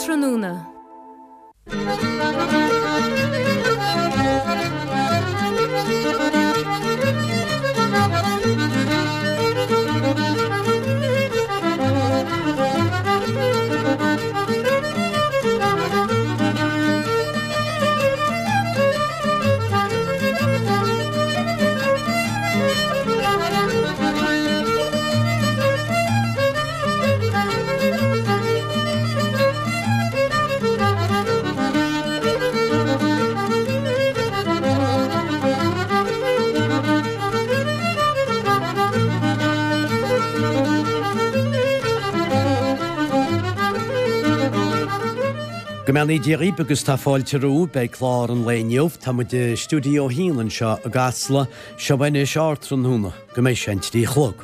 Ardtráthnóna. Go mbeannaí Dia dhaoibh agus tá fáilte romhaibh. Beidh clár an lae inniu. Tá muid i Stiúideo 1 anseo i gCasla. Seo anois Ardtráthnóna. Go mbeidh sé an 3 a chlog.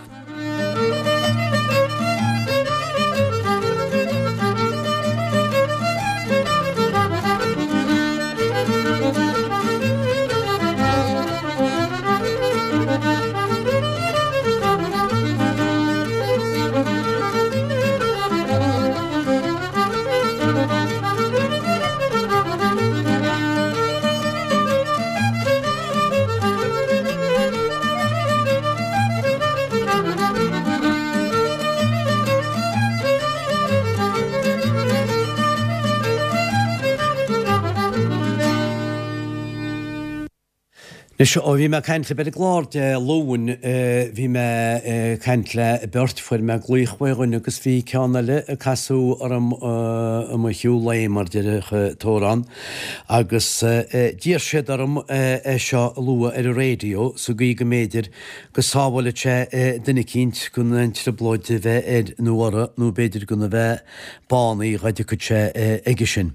Anois, ó bhí mé ag caint libh ar an gclár Dé Luain, bhí mé ag caint le beirt, fuair mé glaoch uaidh dhuine agus bhí ceann eile ag casadh orm i mo shiúl lae, mar déarfadh an t-amhrán. Agus d'iarr siad orm é seo a lua ar an raidió sa gcaoi go mb'fhéidir go sábhálfadh sé duine eicínt gan aon trioblóid a bheith air nó orthu nó b'fhéidir gan a bheith bánaithe dhá dtiocfadh sé aige sin.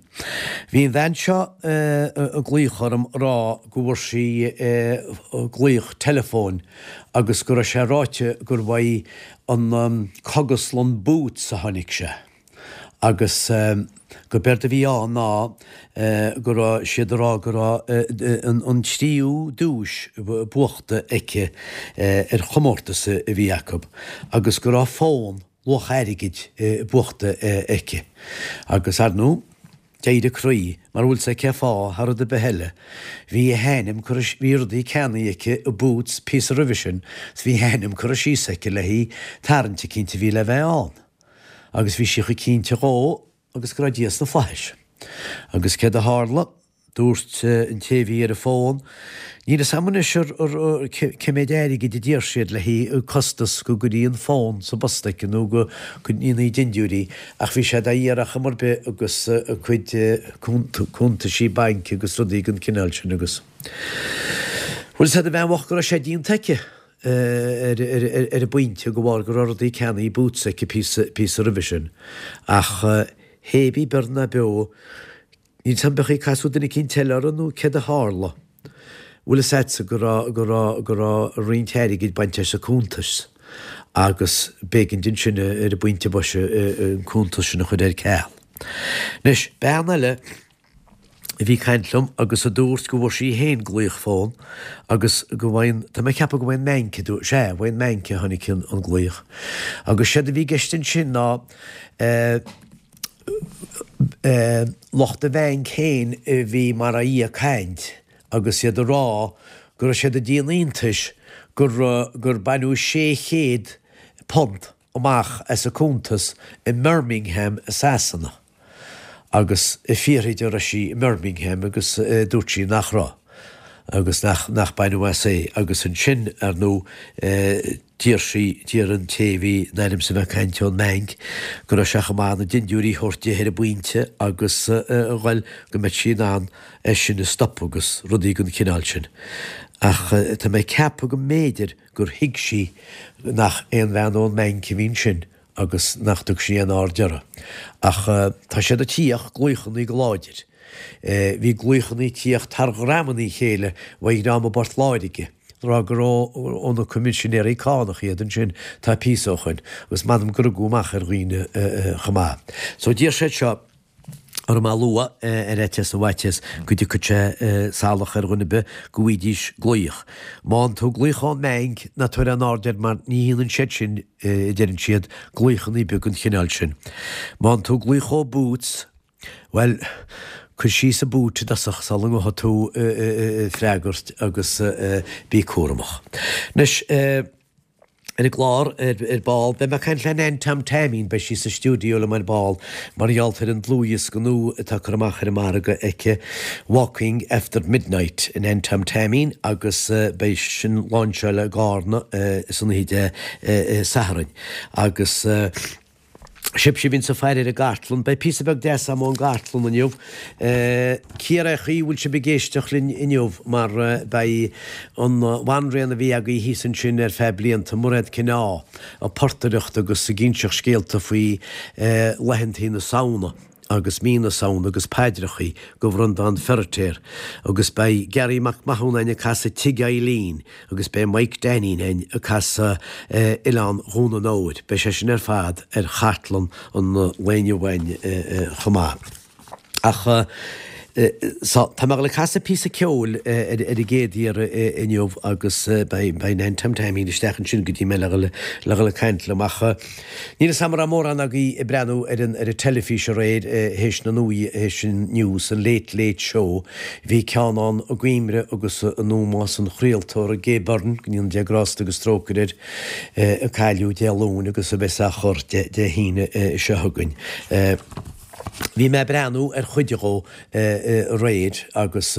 Bhí an bhean seo ag glaoch orm a rá go bhfuair sí glaoch teileafóin agus go raibh sé ráite gur uaidh an Cógaslann Boots a tháinig sé. Agus go b'éard a bhí ann ná go raibh siad ag rá go raibh an tríú duais buachta aici ar chomórtas a bhí acu agus go raibh fón luach airgid buachta aici. Agus ar ndóigh, d'éirigh a croí, mar bhfuil 's a'd cén fáth, thar rud ar bith eile, bhí a hainm curtha, bhí rudaí ceannaithe aici i Boots píosa roimhe sin, 's bhí a hainm curtha síos aici le haghaidh tarraingt eicínt a bhí le bheith ann. Agus bhí sí chomh cinnte dhó agus go raibh Dia sna flaithis. Agus céard a tharla? Dúirt an té a bhí ar an bhfón, Níl fhios a'm anois ar cé méid airgid a d'iarr siad le haghaidh costas go gcuirí an fón sa bpost aici nó go ndéanfaí dindiúirí ach bhí sé dá iarraidh ar chuma ar bith agus a cuid cuntaisí bainc agus rudaí den chineál sin agus. Bhfuil fhios a'd an bhean bhocht go raibh sé déanta aici. ar an bpointe de bharr go raibh rudaí ceannaithe i Boots aici píosa roimhe sin. Ach hébí beo ná beo, níl 's a'm beadh ag casadh duine eicínt eile orthu nó céard a tharla. Bhfuil fhios a'dsa go raibh, go raibh, go raibh roinnt airgid bainte as a cuntas agus b'éigean di ansin ar an bpointe boise an cuntas sin a chur ar ceal. Anois, bean eile, a bhí ag caint liom agus a dúirt go bhfuair sí féin glaoch fón agus go bhfaigheann, tá mé ag ceapadh go bhfaigheann mBanc a dúirt, sea, uaidh an mBanc a tháinig an glaoch. Agus séard a bhí i gceist ansin ná eh, eh, lucht an bhainc féin a bhí mar a dhia ag caint agus iad ag rá go raibh siad ag déanamh iontais gur, gur baineadh £600 amach as a cuntas i mBirmingham i Sasana agus ag fiafraí di an raibh sí i mBirmingham agus dúirt sí nach raibh agus nach nach baineadh as é agus ansin ar ndóigh d'iarr sí d'iarr an té a bhí in ainm is a bheith ag caint ón mbanc go raibh sé chomh maith na dindiúirí a thabhairt di ar an bpointe agus a ghoil go mbeadh sí in ann é sin a stopadh agus rudaí den chineál sin ach tá mé ag ceapadh go mb'fhéidir gur thuig sí nach aon bhean ón mbanc a bhí ansin agus nach dtug sí aon aird orthu. Ach tá siad ag tíocht, glaochannaí go láidir. Bhí glaochannaí ag tíocht thar dhreamannaí a chéile uaidh dhream i bPort Láirge, ag rá gur ó na Coimisinéirí Cánach iad ansin tá píosa ó shoin, agus m'anam gur rugadh amach ar dhaoine chomh maith. So d'iarr siad seo. orm a lua ar fhaitíos na bhfaitíos go dtiocfadh sé salach ar dhuine ar bith go bhfaighidís glaoch. Má fhaigheann tú glaoch ón mbanc, ná tabhair aon aird air mar ní dhéanann siad sin, a deireann siad, glaochanna beag den chineál sin. Má fhaigheann tú glaoch ó Boots. Bhuel, cuir síos an boot i dtosach sula ngabhfaidh tú ag freagairt agus bí cúramach. Anois, ar an gclár ar ball, beidh mé ag caint le Nan Tom Taimín, beidh sí sa stiúideo liom ar ball mar gheall ar an dlúthdhiosca nua atá curtha amach ar an margadh aici, Walking After Midnight, Nan Tom Taimín, agus beidh sin láinseáil i gCarna san oíche Dé Sathairn. Agus. Sibhse a bhíonns ag faire ar an gcartlann, beidh píosa beag deas agam ón gcartlann inniu. Cíor é chaoi a bhfuil sibh ag éisteacht linn inniu mar beidh an bhanríon a bhí agaibh thíos ansin ar feadh blianta, Mairéad Kinneá, ag portaireacht agus ag inseacht scéalta faoi laethantaí na Samhna. agus mí na Samhna agus paidreachaí go Bhreandán Feiritéar agus beidh Garry Mac Mathúna ag casadh Tigh Eileen agus beidh Mike Dainín ag casadh Oileán Dhún an Óir. Beidh sé sin ar fad ar chartlann an lae inniu againn chomh maith. Ach so, tá mé ag dul ag casadh píosa ceoil ar an gcéad iarraidh inniu agus beidh Nan Tom Taimín isteach ansin go dtí mé le dhul ag caint liom ach Níl 'fhios a'm an raibh mórán agaibh ag breathnú ar an ar an teilifís aréir théis na nuaí théis an news, an Late Late Show. Bhí ceann ann i gcuimre agus in ómós an chraoltóra Gay Byrne, go ndéana Dia grásta agus trócaire air, a cailleadh Dé Luain agus a bheas á chur Dé hAoine seo chugainn. Bhí mé ag breathnú ar chuid dhó aréir agus,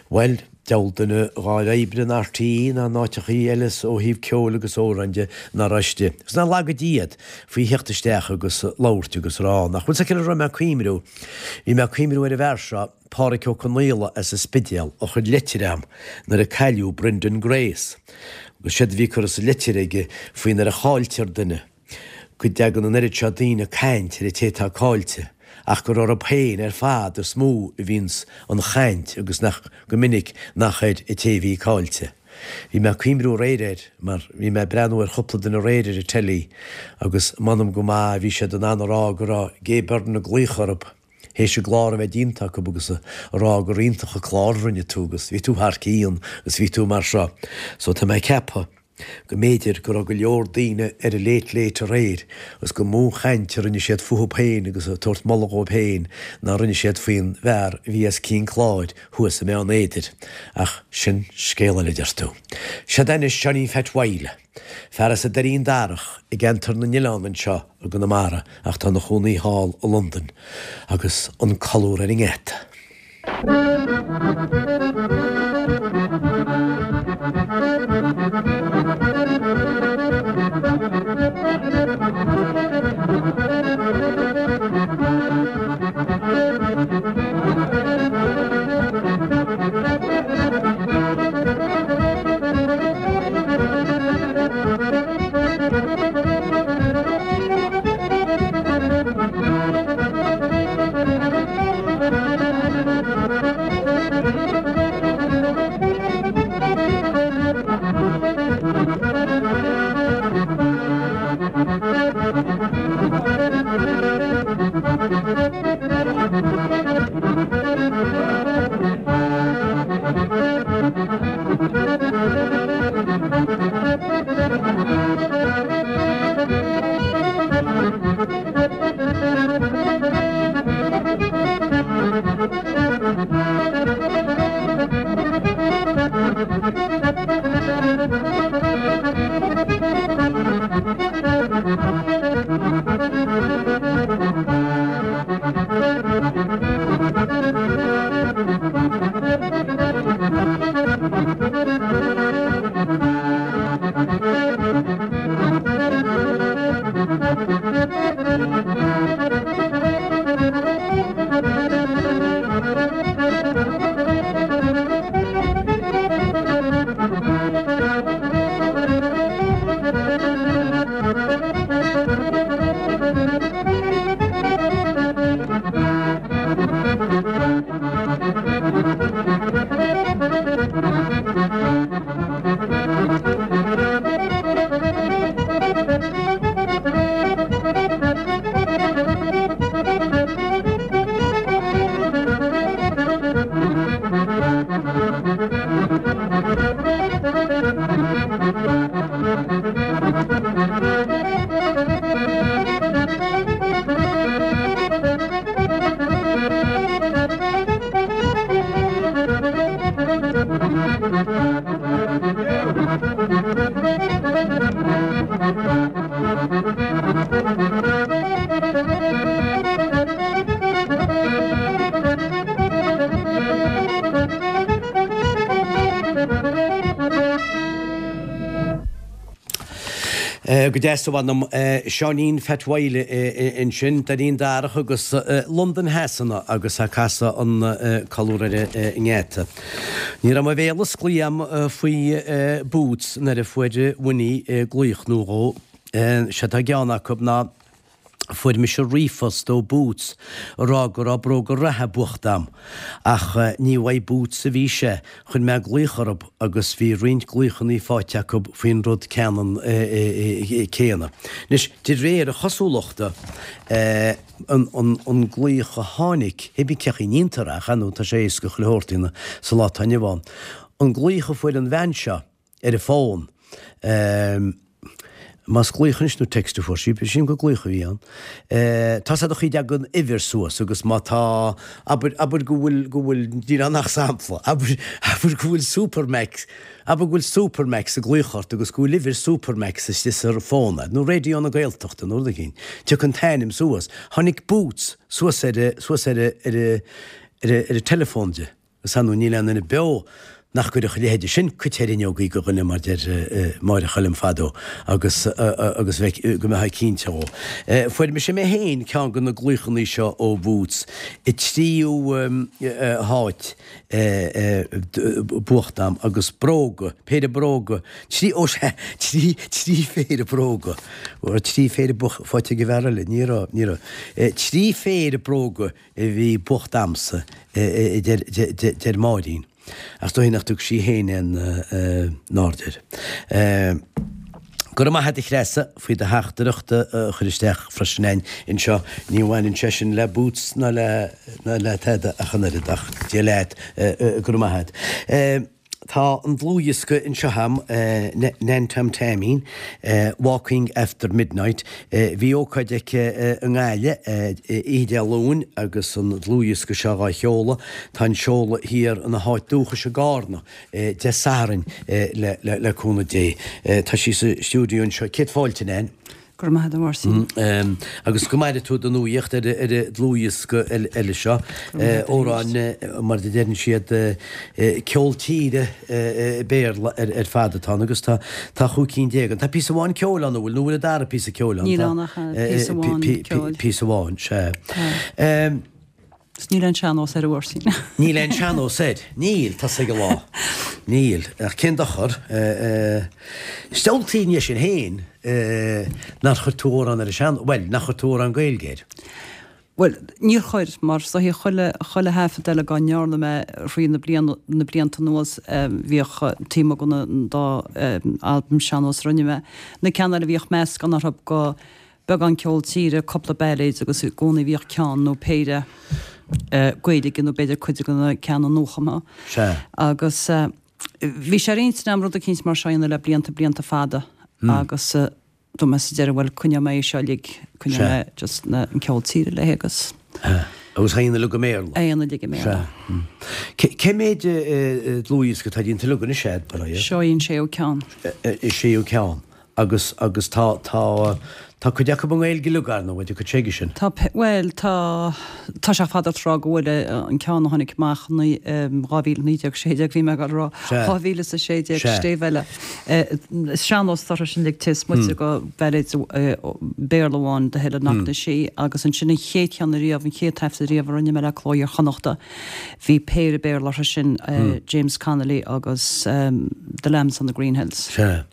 bhuel, Diabhal duine a dh'fháil oibre in RTÉ ná in áiteachaí eile ó thaobh ceoil agus amhráin de ná raibh istigh. Agus nár laga Dia iad faoi theacht isteach agus labhairt agus rá nach bhfuil 's acu ar a raibh mé ag cuimriú. Bhí mé ag cuimriú ar an bhfear seo, Páraic Ó Conaola as an Spidéal, a chuir leitir a'm nuair a cailleadh Brendan Grace. Agus séard a bhí curtha sa leitir aige faoi nuair a chailltear duine. go dtagann an oiread seo daoine ag caint ar an té atá caillte, ach gur orthu féin ar fad is mó a bhíonns an chaint agus nach go minic nach ar an té a bhí caillte. Bhí mé ag cuimriú aréir air mar bhí mé ag breathnú ar chúpla duine aréir ar an teilí agus m'anam go maith a bhí siad in ann a rá go raibh Gay Byrne ag glaoch orthu théis an gclár a bheith déanta acu agus a rá gur iontach an clár a rinne tú agus bhí tú thar cionn agus bhí tú mar seo. So tá mé ag ceapadh go mb'fhéidir go raibh go leor daoine ar an Late Late aréir agus gur mó chaint a rinne siad fúthu féin agus ag tabhairt moladh dhóibh féin ná rinne siad faoin bhfear a bhí os cionn cláir thuas i mBeann Éadair. Ach sin scéal eile, deir tú. Seod é anois Johnny Phat Mhaidhle, fear as an Doirín Darach i gceantar na nOileán anseo i gConamara ach tá ina chónaí thall i Londain agus an colúr ar an ngeata. Go deas a mh'anam. Seáinín Phat Wylie ansin, Dainín Darach agus Londain Shasana agus ag casadh an Colúr ar an nGeata. Ní raibh mo bhéal osclaithe a'm faoi Boots nuair a fuair Winnie glaoch nó dhó. Sé atá i gceann acu ná Fuair mise ríomhphost ó Boots ag rá go raibh bróga reatha buachta a'm. Ach ní uaidh Boots a bhí sé, chuir mé glaoch orthu agus bhí roinnt glaochannaí faighte acu faoin rud ceannann céanna. Anois, de réir a chosúlachta, an glaoch a tháinig, hé bí cén chaoi a ndéantar é, ach ar ndóigh tá sé éasca chuile shórt a dhéanamh sa lá atá inniu ann, an glaoch a fuair an bhean seo, ar an bhfón. Más glaoch anois nó text a fuair sí, sílim gur glaoch a bhí ann. Tá 's a'd an chaoi a dtagann uimhir suas agus má tá, abair, abair go bhfuil, go bhfuil, níl ann ach sampla, abair, abair go bhfuil Supermacs, abair go bhfuil Supermacs ag glaoch ort agus go bhfuil uimhir Supermacs istigh sa fón a'd, nó Raidió na Gaeltachta nó rud éigin, tiocfaidh an t-ainm suas. Tháinig Boots suas ar a, suas ar a, ar a, ar a, ar a teileafón di. Is ar ndóigh níl aon duine beo nach gcuirfeadh a leithéide sin cait ar fhuinneogaí de dhuine mar deir Máire Choilm fadó agus agus bheith go mbeifeá cinnte dhó. Fuair mise mé féin ceann de na glaochannaí seo ó Bhoots i dtríú háit buachta a'm agus bróga, péire bróga, trí, ó sea, trí, trí phéire bróga, trí phéire faighte ag an bhfear eile, ní raibh, ní raibh, trí phéire bróga a bhí buachta a'msa, a deir Máirín. Ach is dóigh nach dtug sí féin aon aird air. Go raibh maith a't a Threasa faoi do theachtaireacht a chur isteach freisin a'inn anseo. Ní bhaineann sé sin le Boots ná le tada ach an oiread ach Dia leat, go raibh maith a't. Tá an dlúthdhiosca anseo a'm, Nan Tom Taimín, Walking After Midnight. Bhí ócáid aici i nGaillimh oíche Dé Luain agus an dlúthdhiosca seo dhá sheoladh. Tá an seoladh thiar ina háit dúchais i gCarna Dé Sathairn le cúnamh Dé. Tá sí sa stiúideo anseo. Céad fáilte, Nan. Go raibh maith agat, a Mháirtín. Agus go maire tú do nuaíocht ar an dlúthdhiosca eile seo. Amhráin, mar a deireann siad, ceol tíre Béarla ar fad atá ann agus tá chúig cinn déag ann. Tá píosa amháin ceoil ann, an bhfuil? Nó an bhfuil an dara píosa ceoil ann? Níl ann ach píosa amháin ceoil. Píosa amháin, sea. Is níl aon sean-nós air, a Mháirtín. Níl aon sean-nós air. Níl, tá 's ag an lá. Níl. Ach cén dochar? Is diabhaltaí é sin féin nár chuir tú amhrán ar an sean, bhuel, nach chuir tú amhrán Gaeilge air. Bhuel, níor chuir, mar is dóichí chuile, chuile thaifead eile dá ndearna mé thrí na bliana, na blianta anuas, bhíodh taobh amuigh den an dá albam sean-nós a rinne mé, na ceanna eile bhíodh meascán orthu go, beagán ceol tíre, cúpla bailéid agus i gcónaí bhíodh ceann nó péire Gaeilge nó b'fhéidir cuid de na ceanna nuachumtha. Sea. Agus bhí sé ar intinn agam rud eicínt mar seo a dhéanamh le blianta, blianta fada agus dúirt mé sa deireadh bhuel coinneoidh mé é seo uilig, coinneoidh mé just na, an ceol tíre léi agus. Sea. Agus a dhéanamh uilig i mBéarla. A dhéanamh uilig i mBéarla. Sea. Cé méid dlúthdhiosca atá déanta uilig anois a'd, mar é? Seo í an séú ceann. An séú ceann. Agus, agus tá, tá, tá cuid acu i nGaeilge uilig, ar ndóigh, an cuid s'aige sin. Tá, bhuel, tá, tá sé fada tráth go bhfuil an ceann a tháinig amach i 2019, 16, bhí mé ag dul a rá, 2016, Stéibh Eile. Is sean-nós orthu sin uilig is moite de bhailéid Béarla amháin, The Hill at Knocknashee, agus ansin an chéad cheann ariamh, an chéad taifead ariamh a rinne mé le Cló Iar-Chonnachta, bhí péire Béarla orthu sin, James Connolly agus The Lambs on the Green Hills. Sea.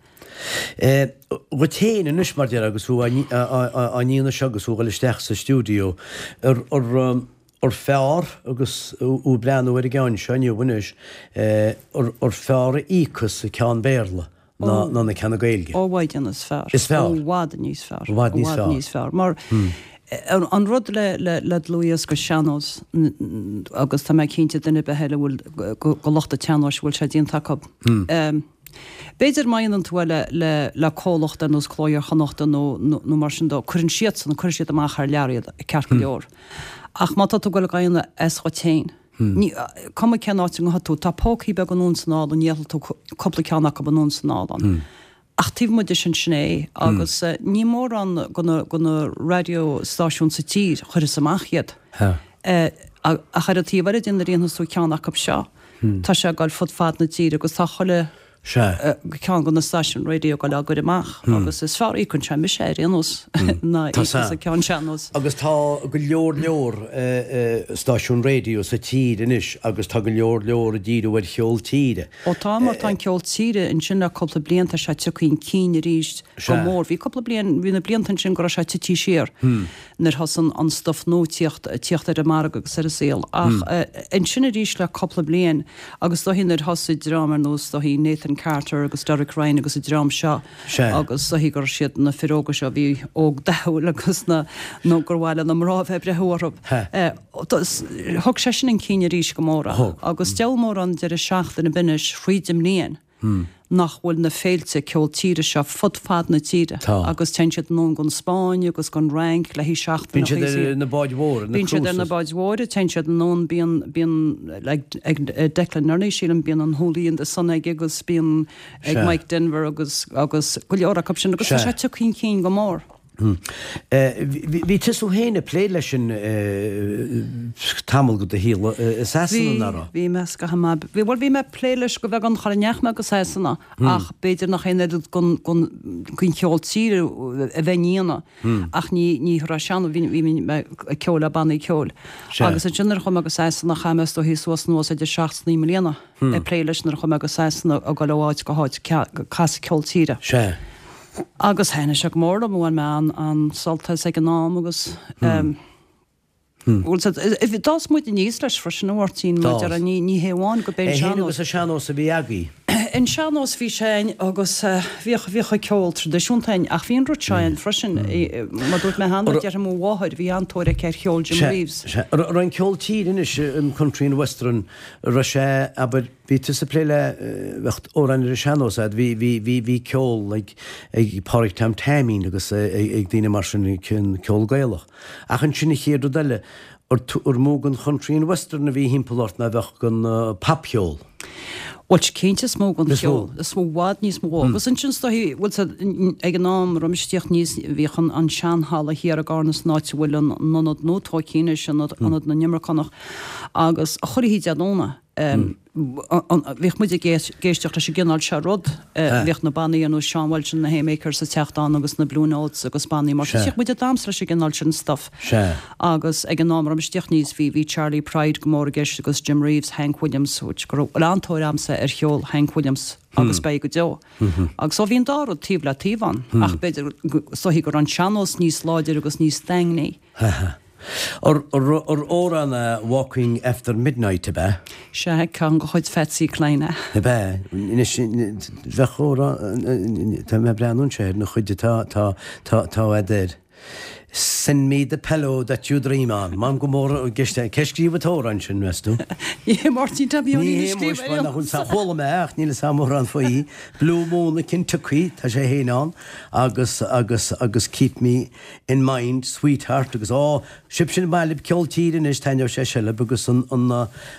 Dhuit féin anois, mar déarfá, agus thú á ndéanamh seo agus thú ag dul isteach sa stiúideo, ar fearr, agus thú ag breathnú ar an gceann seo inniu anois, ar fearr a íocas an ceann Béarla ná na ceanna Gaeilge? Ó, i bhfad níos fearr. Is fearr? Ó, i bhfad níos fearr. I bhfad níos fearr. I bhfad níos fearr. Mar an rud le dlúthdhiosca sean-nós, agus tá mé cinnte duine ar bith eile a bhfuil, go lucht an tsean-nóis a bhfuil sé déanta acu, B'fhéidir má dhéanann tú é le le comhlacht ar nós Cló Iar-Chonnachta nó nó mar sin dó, cuireann siadsan, cuireann siad amach thar lear iad, ceart go leor. Ach má tá tú ag dul á dhéanamh as dhuit féin, ní, cuma cén áit a ngabhfaidh tú, tá pócaí beaga anonn is anall ann, gheobhaidh tú cúpla ceann acu anonn is anall ann. Ach taobh amuigh de sin, sin é. Agus ní mórán de na, de na raidió stáisiúin sa tír a chuirfeas amach iad. Ach ar an taobh eile de nuair a dhéanfas tú ceann acu seo, tá sé ag dul fud fad na tíre agus tá chuile. Sea. Ceann de na stáisiúin raidió ag dul á gcur amach agus is fearr a íocann sé mise ar aon nós ná íocas an ceann sean-nós. Agus tá go leor leor stáisiún raidió sa tír anois agus tá go leor leor ag díriú ar cheol tíre. Ó tá, mar tá an ceol tíre ansin le cúpla bliain tá sé tagtha chun cinn arís go mór. Bhí cúpla bliain, bhí na blianta ansin go raibh sé tití siar. nuair thosaigh an stuif nua tíocht tíocht ar an margadh agus ar an saol. Ach ansin arís le cúpla bliain agus is dóichí nuair thosaigh dream ar nós is dóichí Nathan Carter agus Derek Ryan agus an dream seo agus is dóichí gur siad na fir óga seo a bhí óg dathúil agus na nó gur mhaith le na mná a bheith ag breith orthu. Thug sé sin chun cinn arís go mór é. Agus deabhal mórán deireadh seachtaine ar bith anois thríd an mbliain. nach bhfuil na féilte ceol tíre seo fud fad na tíre agus téann siad anonn gon Spáinn agus gon Fhrainc le haghaidh seachtain Bíonn siad ar na báid mhóra, na Bíonn siad ar na cruises. báid mhóra, téann siad anonn, bíonn, bíonn like ag Declan Nerney sílim, bíonn an Hoolie and the Sun aige agus bíonn ag Sea. Mike Denver agus, agus go leor acu sin agus tá Sea. sé tagtha chun cinn go mór. Bhí tusa féin ag plé leis sin tamall de do shaol i Sasana, Bhí, nach raibh? bhí mé scaitheamh maith. Bhí, bhuel bhí mé ag plé leis go bheagán char ndeachaigh mé go Sasana ach b'fhéidir nach aon oiread gon, gon, gon cheol tíre a bheinn a dhéanamh ach ní, ní raibh sé ann, bhí, bhí mé ag ceol le bannaí ceoil. Agus ansin nuair a chuaigh mé go Sasana chaith mé is dóichí suas anuas idir seacht is naoi mbliana ag plé leis nuair a chuaigh mé go Sasana ag dul ó áit go háit ag casadh ceol tíre. Sea. Agus thaitnigh sé go mór liom, bhain mé an-sult as ag an am agus bhuel d'fhás muid aníos leis freisin a Mháirtín, mar a déarfá, ní hé amháin go b'é an É féin sean-nós. agus an sean-nós a bhí agaibh. An sean-nós bhí sé ann agus bhíodh, bhíodh an ceol traidisiúnta ann ach bhí an rud seo ann freisin, mar dúirt mé cheana, déarfainn mo mháthair, bhí an-tóir aici ar cheol Jim Sea, Reeves. sea. Raibh an ceol tíre anois, an country and western, raibh sé, abair, Bhí tusa ag plé le, bheadh amhráin ar an sean-nós a'd, bhí, bhí, bhí, bhí ceol ag, ag Pádraig Tom Taimín agus ag daoine mar sin, ceol Gaelach. Ach ansin an chéad rud eile, ar, ar mó den country and western a bhí thimpeall ort ná bheadh den popcheol? Bhuel, cinnte is mó den Is mó. cheol, is mó, i bhfad níos mó. Agus ansin is dóichí, bhuel, ag an am a raibh mise ag tíocht aníos, bhíodh an, an seanhalla thiar i gCarna san áit a bhfuil an t-ionad nua tóigthe anois, ionad, ionad na nImirceánach, agus chuile oíche Dé Domhnaigh, Bhíodh muid ag éisteacht leis an gcineál seo rud. Bhíodh na bannaí ar nós Sean Walsh and the Haymakers ag teacht ann agus na Blue Notes agus bannaí mar sin. Bhíodh muid ag damhsa leis an gcineál sin stuff. Agus ag an am a raibh mise ag tíocht aníos bhí bhí Charley Pride go mór i gceist agus Jim Reeves, Hank Williams, which go raibh an-tóir a'msa ar cheol Hank Williams agus beidh go deo. Agus so bhí an dá rud taobh le taobh ann ach b'fhéidir is dóichí go raibh an sean-nós níos láidire agus níos daingní. Ar amhrán é Walking After Midnight, ab ea? Sea, ceann de chuid Phatsy Cline é. Ab ea? Anois, bheadh amhrán, tá mé ag breathnú anseo ar na chuid atá, tá, tá, tá a'd air. Send me the pillow that you dream on. M'anam go mór i gceist é. Cé scríobh an t-amhrán sin, meas tú? Ní hé Máirtín Tom Sheáinín a a scríobh scríobh ar aon nós. Chuala mé ach níl 'fhios a'm mórán faoi. Blue Moon of Kentucky, tá sé féin ann, agus, agus, agus Keep Me In Mind, Sweetheart agus Ó, sibhse ar maith libh ceol tíre anois, taitneoidh sé seo libh agus an, an,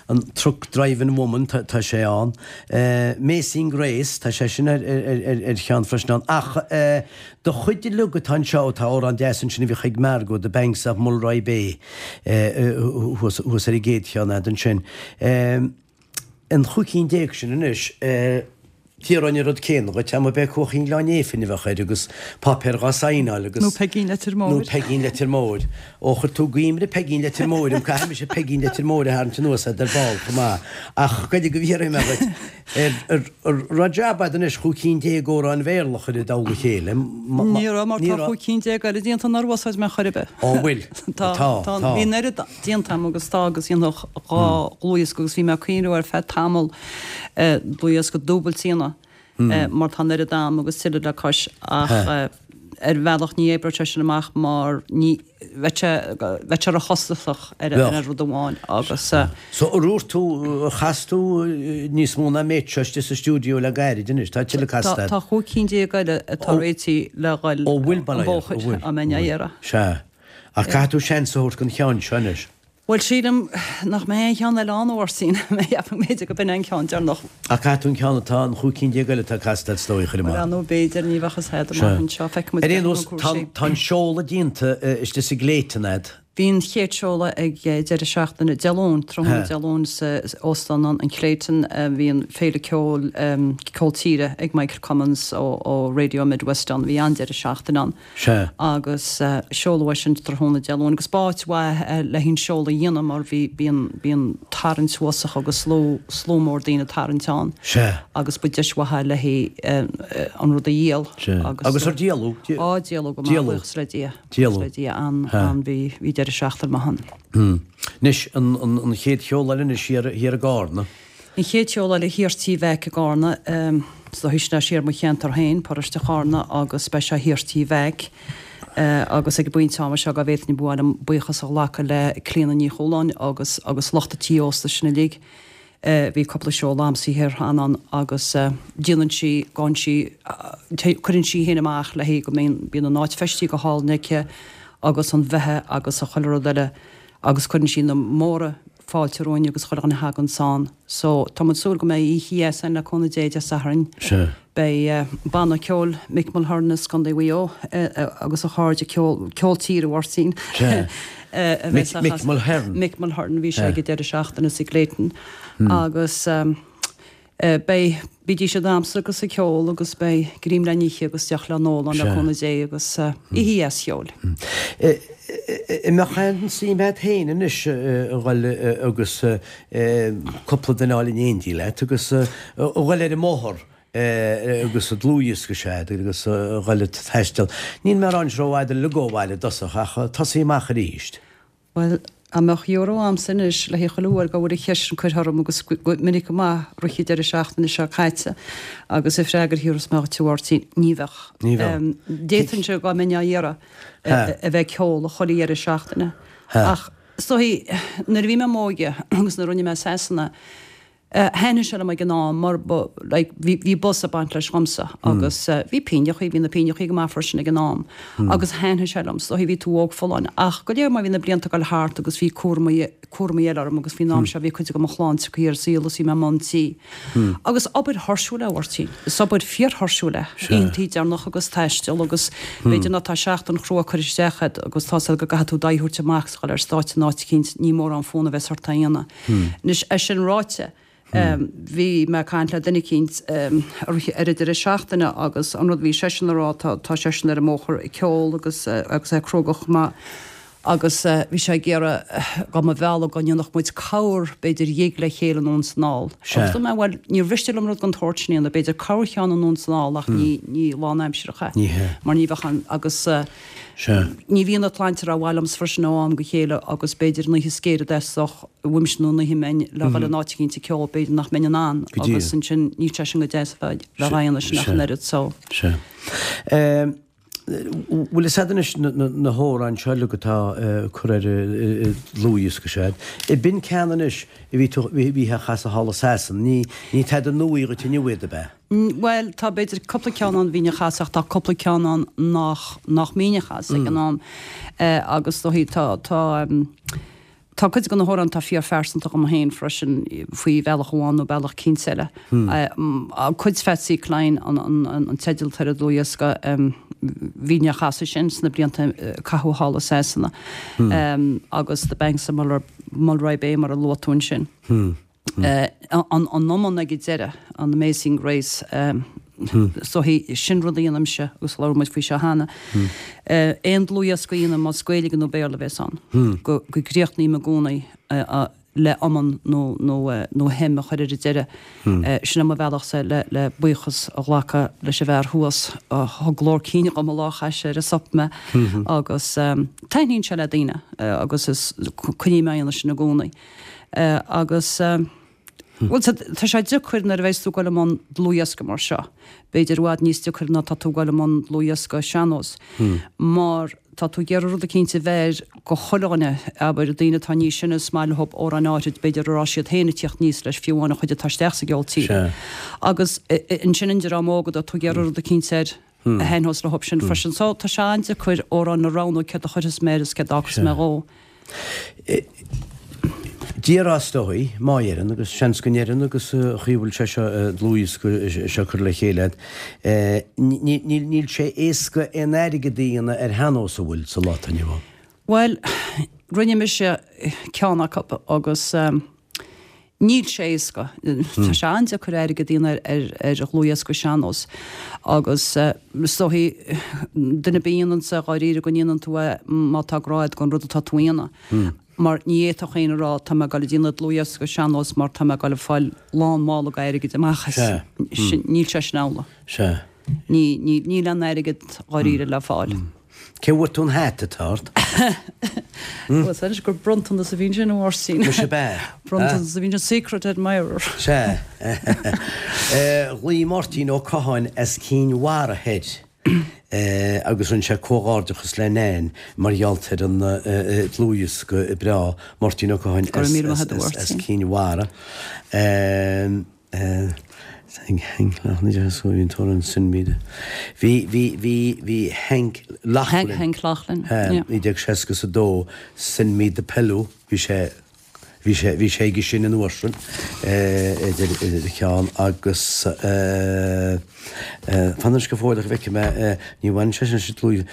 an Truck Driving Woman, tá, tá sé ann. Amazing Grace, tá sé sin ar, ar, ar, ar cheann freisin ann. Ach eh, do chuid uilig atá anseo, tá amhrán deas ansin a bhíodh ag Margo, The Banks of Mulroy Bay, eh, thuas, thuas ar an gcéad cheann a'd ansin. Eh, An chúig cinn déag sin anois, d'iarrfainn an rud céanna dhuit, dá mba b'é Cuaichín Ghleann Néifinn a bheadh air agus páipéar dhá saighneáil agus. Nó Peigín Leitir Móir. Nó Peigín Leitir Móir. Ó, chuir tú gaimre Peigín Leitir Móir orm, caithfidh mise Peigín Leitir Móir a tharraingt anuas a'd ar ball chomh maith. Ach goidé go bhfiafraí mé dhuit, ar, ar, raibh jab a'd anois chúig cinn déag amhráin Bhéarla a chur i dtoll a chéile? Ní raibh, mar tá chúig cinn déag eile déanta nár úsáid mé chor ar bith. Ó, bhfuil? Tá, tá, bhí an oiread. déanta agam agus tá agus dhéanfadh dhá dhlúthdhiosca agus bhí mé ag cuimhneamh ar feadh tamall dlúthdhiosca dúbailte a dhéanamh mar tá an oiread a'm agus tuilleadh le cois ach ar bhealach ní oibreodh sé sin amach mar ní bheadh sé bheadh sé róchostasach ar ar rud amháin agus. So ar dhúirt tú ar chas tú níos mó ná an méid seo istigh sa stiúideo le gairid anois, tá tuilleadh casta agat? Tá chúig cinn déag eile atá réitithe le dhul an bóthar á mbeinn á iarraidh. Sea. Ach caithfidh tú seans a thabhairt don cheann seo anois. Bhuel, sílim nach mbeidh aon cheann eile ann, a Mháirtín. Cheapfainn b'fhéidir go b'in é an ceann deireanach. Ach caithfidh tú an ceann atá, an chúig cinn déag eile atá casta agat is dóigh, a chur amach. Bhuel, nó b'fhéidir, ní bheadh fhios a'd amach anseo. Feicfidh muid Ar aon nós, tá an seoladh déanta istigh sa gClayton a'd. Bhí an chéad seoladh ag deireadh seachtaine Dé Luain, tráthnóna Dé Luain sa Óstán an Clayton. Bhí an Féile Ceoil, Ceol Tíre ag Michael Cummins ó Radio Midwest ann. Bhí an-deireadh seachtaine ann. Sea. Agus seoladh é sin tráthnóna Dé Luain agus b'áit mhaith é le haghaidh an seoladh a dhéanamh mar bhí, bíonn, bíonn tarraingt uafásach agus slua, slua mór daoine ag tarraingt ann. Sea. Agus ba deis mhaith é le haghaidh an rud a dhíol. Sea. Agus ar díoladh? Á, díoladh go maith, buíochas le Dia. Díoladh. Le Dia an, an, bhí, bhí deireadh seachtaine maith ann. Anois, an, an, an chéad sheoladh eile anois thiar, thiar i gCarna. An chéad seoladh eile thiar Tí Mheaic i gCarna, is dóichí sin é siar mo cheantar féin, paróiste Charna, agus beidh sé thiar Tí Mheaic. Agus ag an bpointe ama seo, dá bhféadfainn ba mhaith liom buíochas a ghlacadh le Clíona Ní Chualáin agus, agus lucht an tí ósta sin uilig. Bhí cúpla seoladh a'msa thiar cheana ann agus déanann sí, gabhann sí, cuireann sí féin amach léi go mbíonn, bíonn an áit feistithe go hálainn aici agus an bheatha agus a chuile rud eile agus cuireann sí na móra fáilte romhainn agus chuile dhuine a thaganns ann. So tá muid ag súil go mbeidh oíche dheas ann le cúnamh Dé Dé Sathairn. Sea. Beidh banna ceoil Mick Mulhern as Contae Mhaigh Eo agus a chairde ceol, ceol tíre a Mháirtín. A bheas á Mick Mulhern. Mick Mulhern, bhí sé ag an deireadh seachtaine sa gClayton agus beidh, bídís ag damhsa agus ag ceol agus beidh greim le n-ithe agus deoch le n-ól ann le cúnamh Dé agus oíche dheas cheoil. An mbeadh aon suim agat féin anois a dhul agus cúpla duine a fháil in éindí leat agus a dhul ar an mbóthar agus dlúthdhiosca sea agus a dhul ag taisteal. Níl mé ag rá anois rófhada uilig ó bhaile i dtosach ach tosaí amach arís. Bhuel, dá mbeadh euro a'msa anois le haghaidh chuile uair go bhfuil an cheist sin curtha orm agus go minic go maith rith an deireadh seachtaine seo caite agus an freagra a thabharfas mé dhuit a Mháirtín, ní bheadh. Ní bheadh. D'fhéadfainnse dá mbeinn á iarraidh a bheith ag ceol chuile dheireadh seachtaine ach is dóichí nuair a bhí mé i m'óige agus nuair a rinne mé Sasana, Thaitnigh sé liom ag an am mar ba like bhí bhí buzz ag baint leis dhomsa agus bhí pínneachaí, bhí na pínneachaí go maith freisin ag an am agus thaitnigh sé liom, is dóichí bhí tú óg folláin ach go léir mar bhí na blianta ag dul thart agus bhí cúramaí cúramaí eile orm agus faoin am seo bhí cuid de mo chlann tagtha ar an saol agus bhí mé i mbun tí agus obair thuirsiúil é a Mháirtín, is obair fíorthuirsiúil é, oícheantaí deireanach agus taisteal agus b'fhéidir ná tá seachtain chrua curtha isteach agat agus tá's agat go gcaithfidh tú d'aghaidh a thabhairt amach is a dhul ar stáitse in áit eicínt, ní mórán fonn a bheas ort é a dhéanamh. Anois, é sin ráite, bhí mé ag caint le duine eicínt ar an deireadh seachtaine agus an rud a bhí seisean a rá, tá seisean ar an mbóthar ag ceol agus agus é cróga chomh maith agus bhí sé ag iarraidh dá mba mhealladh go ndéanfadh muid corr b'fhéidir ghig le chéile anonn is anall. Agus dúirt mé, bhuel, níor mhiste liom rud den tsórt sin a dhéanamh, b'fhéidir corrcheann anonn is anall ach ní ní lánaimsearach é mar ní bheadh an agus Sea. Ní bhíonn an tsláinte rómhaith liomsa freisin ó am go chéile agus b'fhéidir an oíche is géire a dteastódh uaimse nó an oíche a mbeinn le dhul in áit eicínt ag ceol b'fhéidir nach mbeinn in ann Go díreach. agus ansin níl sé sin go deas a bheith á dhéanamh sin ach an oiread so. Sea. Bhfuil fhios a'd anois na hamhráin seo uilig atá curtha ar an dlúthdhiosca seo a'd. B'in ceann anois a bhí tú, bhí á chasadh thall i Sasana, ní, ní tada nua dhuit inniu iad ab ea? Bhuel, tá b'fhéidir cúpla ceann ann a bhínn a chasadh ach tá cúpla ceann ann nach, nach mbínn a chasadh ag an am. Agus is dóichí tá, tá, tá cuid de na hamhráin atá fíorphearsanta dhom féin freisin faoi bhealach amháin nó bealach eicínt eile. Cuid Phatsy Cline an, an, an teideal atá ar an dlúthdhiosca, bhínn á chasadh sin sna blianta a caitheadh thall i Sasana. Agus The Banks of Mulroy Bay mar a luaigh tú ansin. An iomann ag an deireadh, an Amazing Grace, is dóichí, sin rud a dhéanaimse agus labhair muid faoi seo cheana. Aon dlúthdhiosca a dhéanaim, más Gaeilge nó Béarla a bhéas ann, go gcríochnaím i gcónaí le iomann nó nó hymn a chur ar an deireadh. Sin é mo bhealachsa le buíochas a ghlacadh leis an bhfear thuas a thug glór cinn dhom an lá a chaith sé ar an sop mé agus taitníonn sé le daoine agus is coinním á dhéanamh sin i gcónaí. Agus, bhuel, tá sé deacair nuair a bheas tú ag dul i mbun dlúthdhiosca mar seo, b'fhéidir i bhfad níos deacair ná tá tú ag dul i mbun dlúthdhiosca sean-nós, mar tá tú ag iarraidh rud eicínt a bheir go chuile dhuine, abair, daoine atá níos sine, is maith leo amhráin áithrid, b'fhéidir a raibh siad féin ag tíocht aníos leis, fiú amháin an chuid atá isteach sa gceol tíre. Agus ansin an dream óg, tá tú ag iarraidh rud eicínt air a thaitneos leo sin freisin. So tá sé an-deacair amhráin a roghnú céard a chuirfeas mé air is céard a fhágfas mé dhó. Déarfá is dóigh, má oireann, agus seans go n-oireann agus an chaoi a bhfuil sé seo, dlúthdhiosca seo curtha le chéile agat, níl sé éasca aon airgead a dhéanamh ar shean-nós an bhfuil sa lá atá inniu ann. Bhuel. Rinne mise ceann acu agus níl sé éasca. Tá sé an-deacair airgead a dhéanamh ar dhlúthdhiosca sean-nós agus is dóichí duine ar bith a dhéananns é dháiríre go ndéanann tú é má tá grá agat don rud atá tú a dhéanamh. Mar ní fhéadfadh éinne a rá tá mé ag dul a déanamh dlúthdhiosca sean-nós mar tá mé ag dul a fáil lán mála airgid amach as. Níl sé sin amhlaidh. Níl aon airgead dháiríre le fáil. Cé bhfuair tú an hata atá ort? Bhuel, is anois gur bronntanas a bhí ansin, a Mháirtín. Muise ab ea? Bronntanas a bhí ansin, secret admirer. Sea. Ghlaoigh Máirtín Ó Catháin as Cinn Mhara thoir agus rinne sé comhghairdeachas le Nan mar gheall ar an dlúthdhiosca breá. Máirtín Ó Catháin as Cinn Mhara. Hank Loughlin, sin míle. Bhí, bhí, bhí, bhí Hank Loughlin. Hank Loughlin, yeah. 1962, Send Me the Pillow, bhí sé, bhí sé, bhí sé aige sin an uair sin, idir, idir a cheann agus fan anois go fóill go bhfeicfidh mé, ní bhaineann sé sin leis an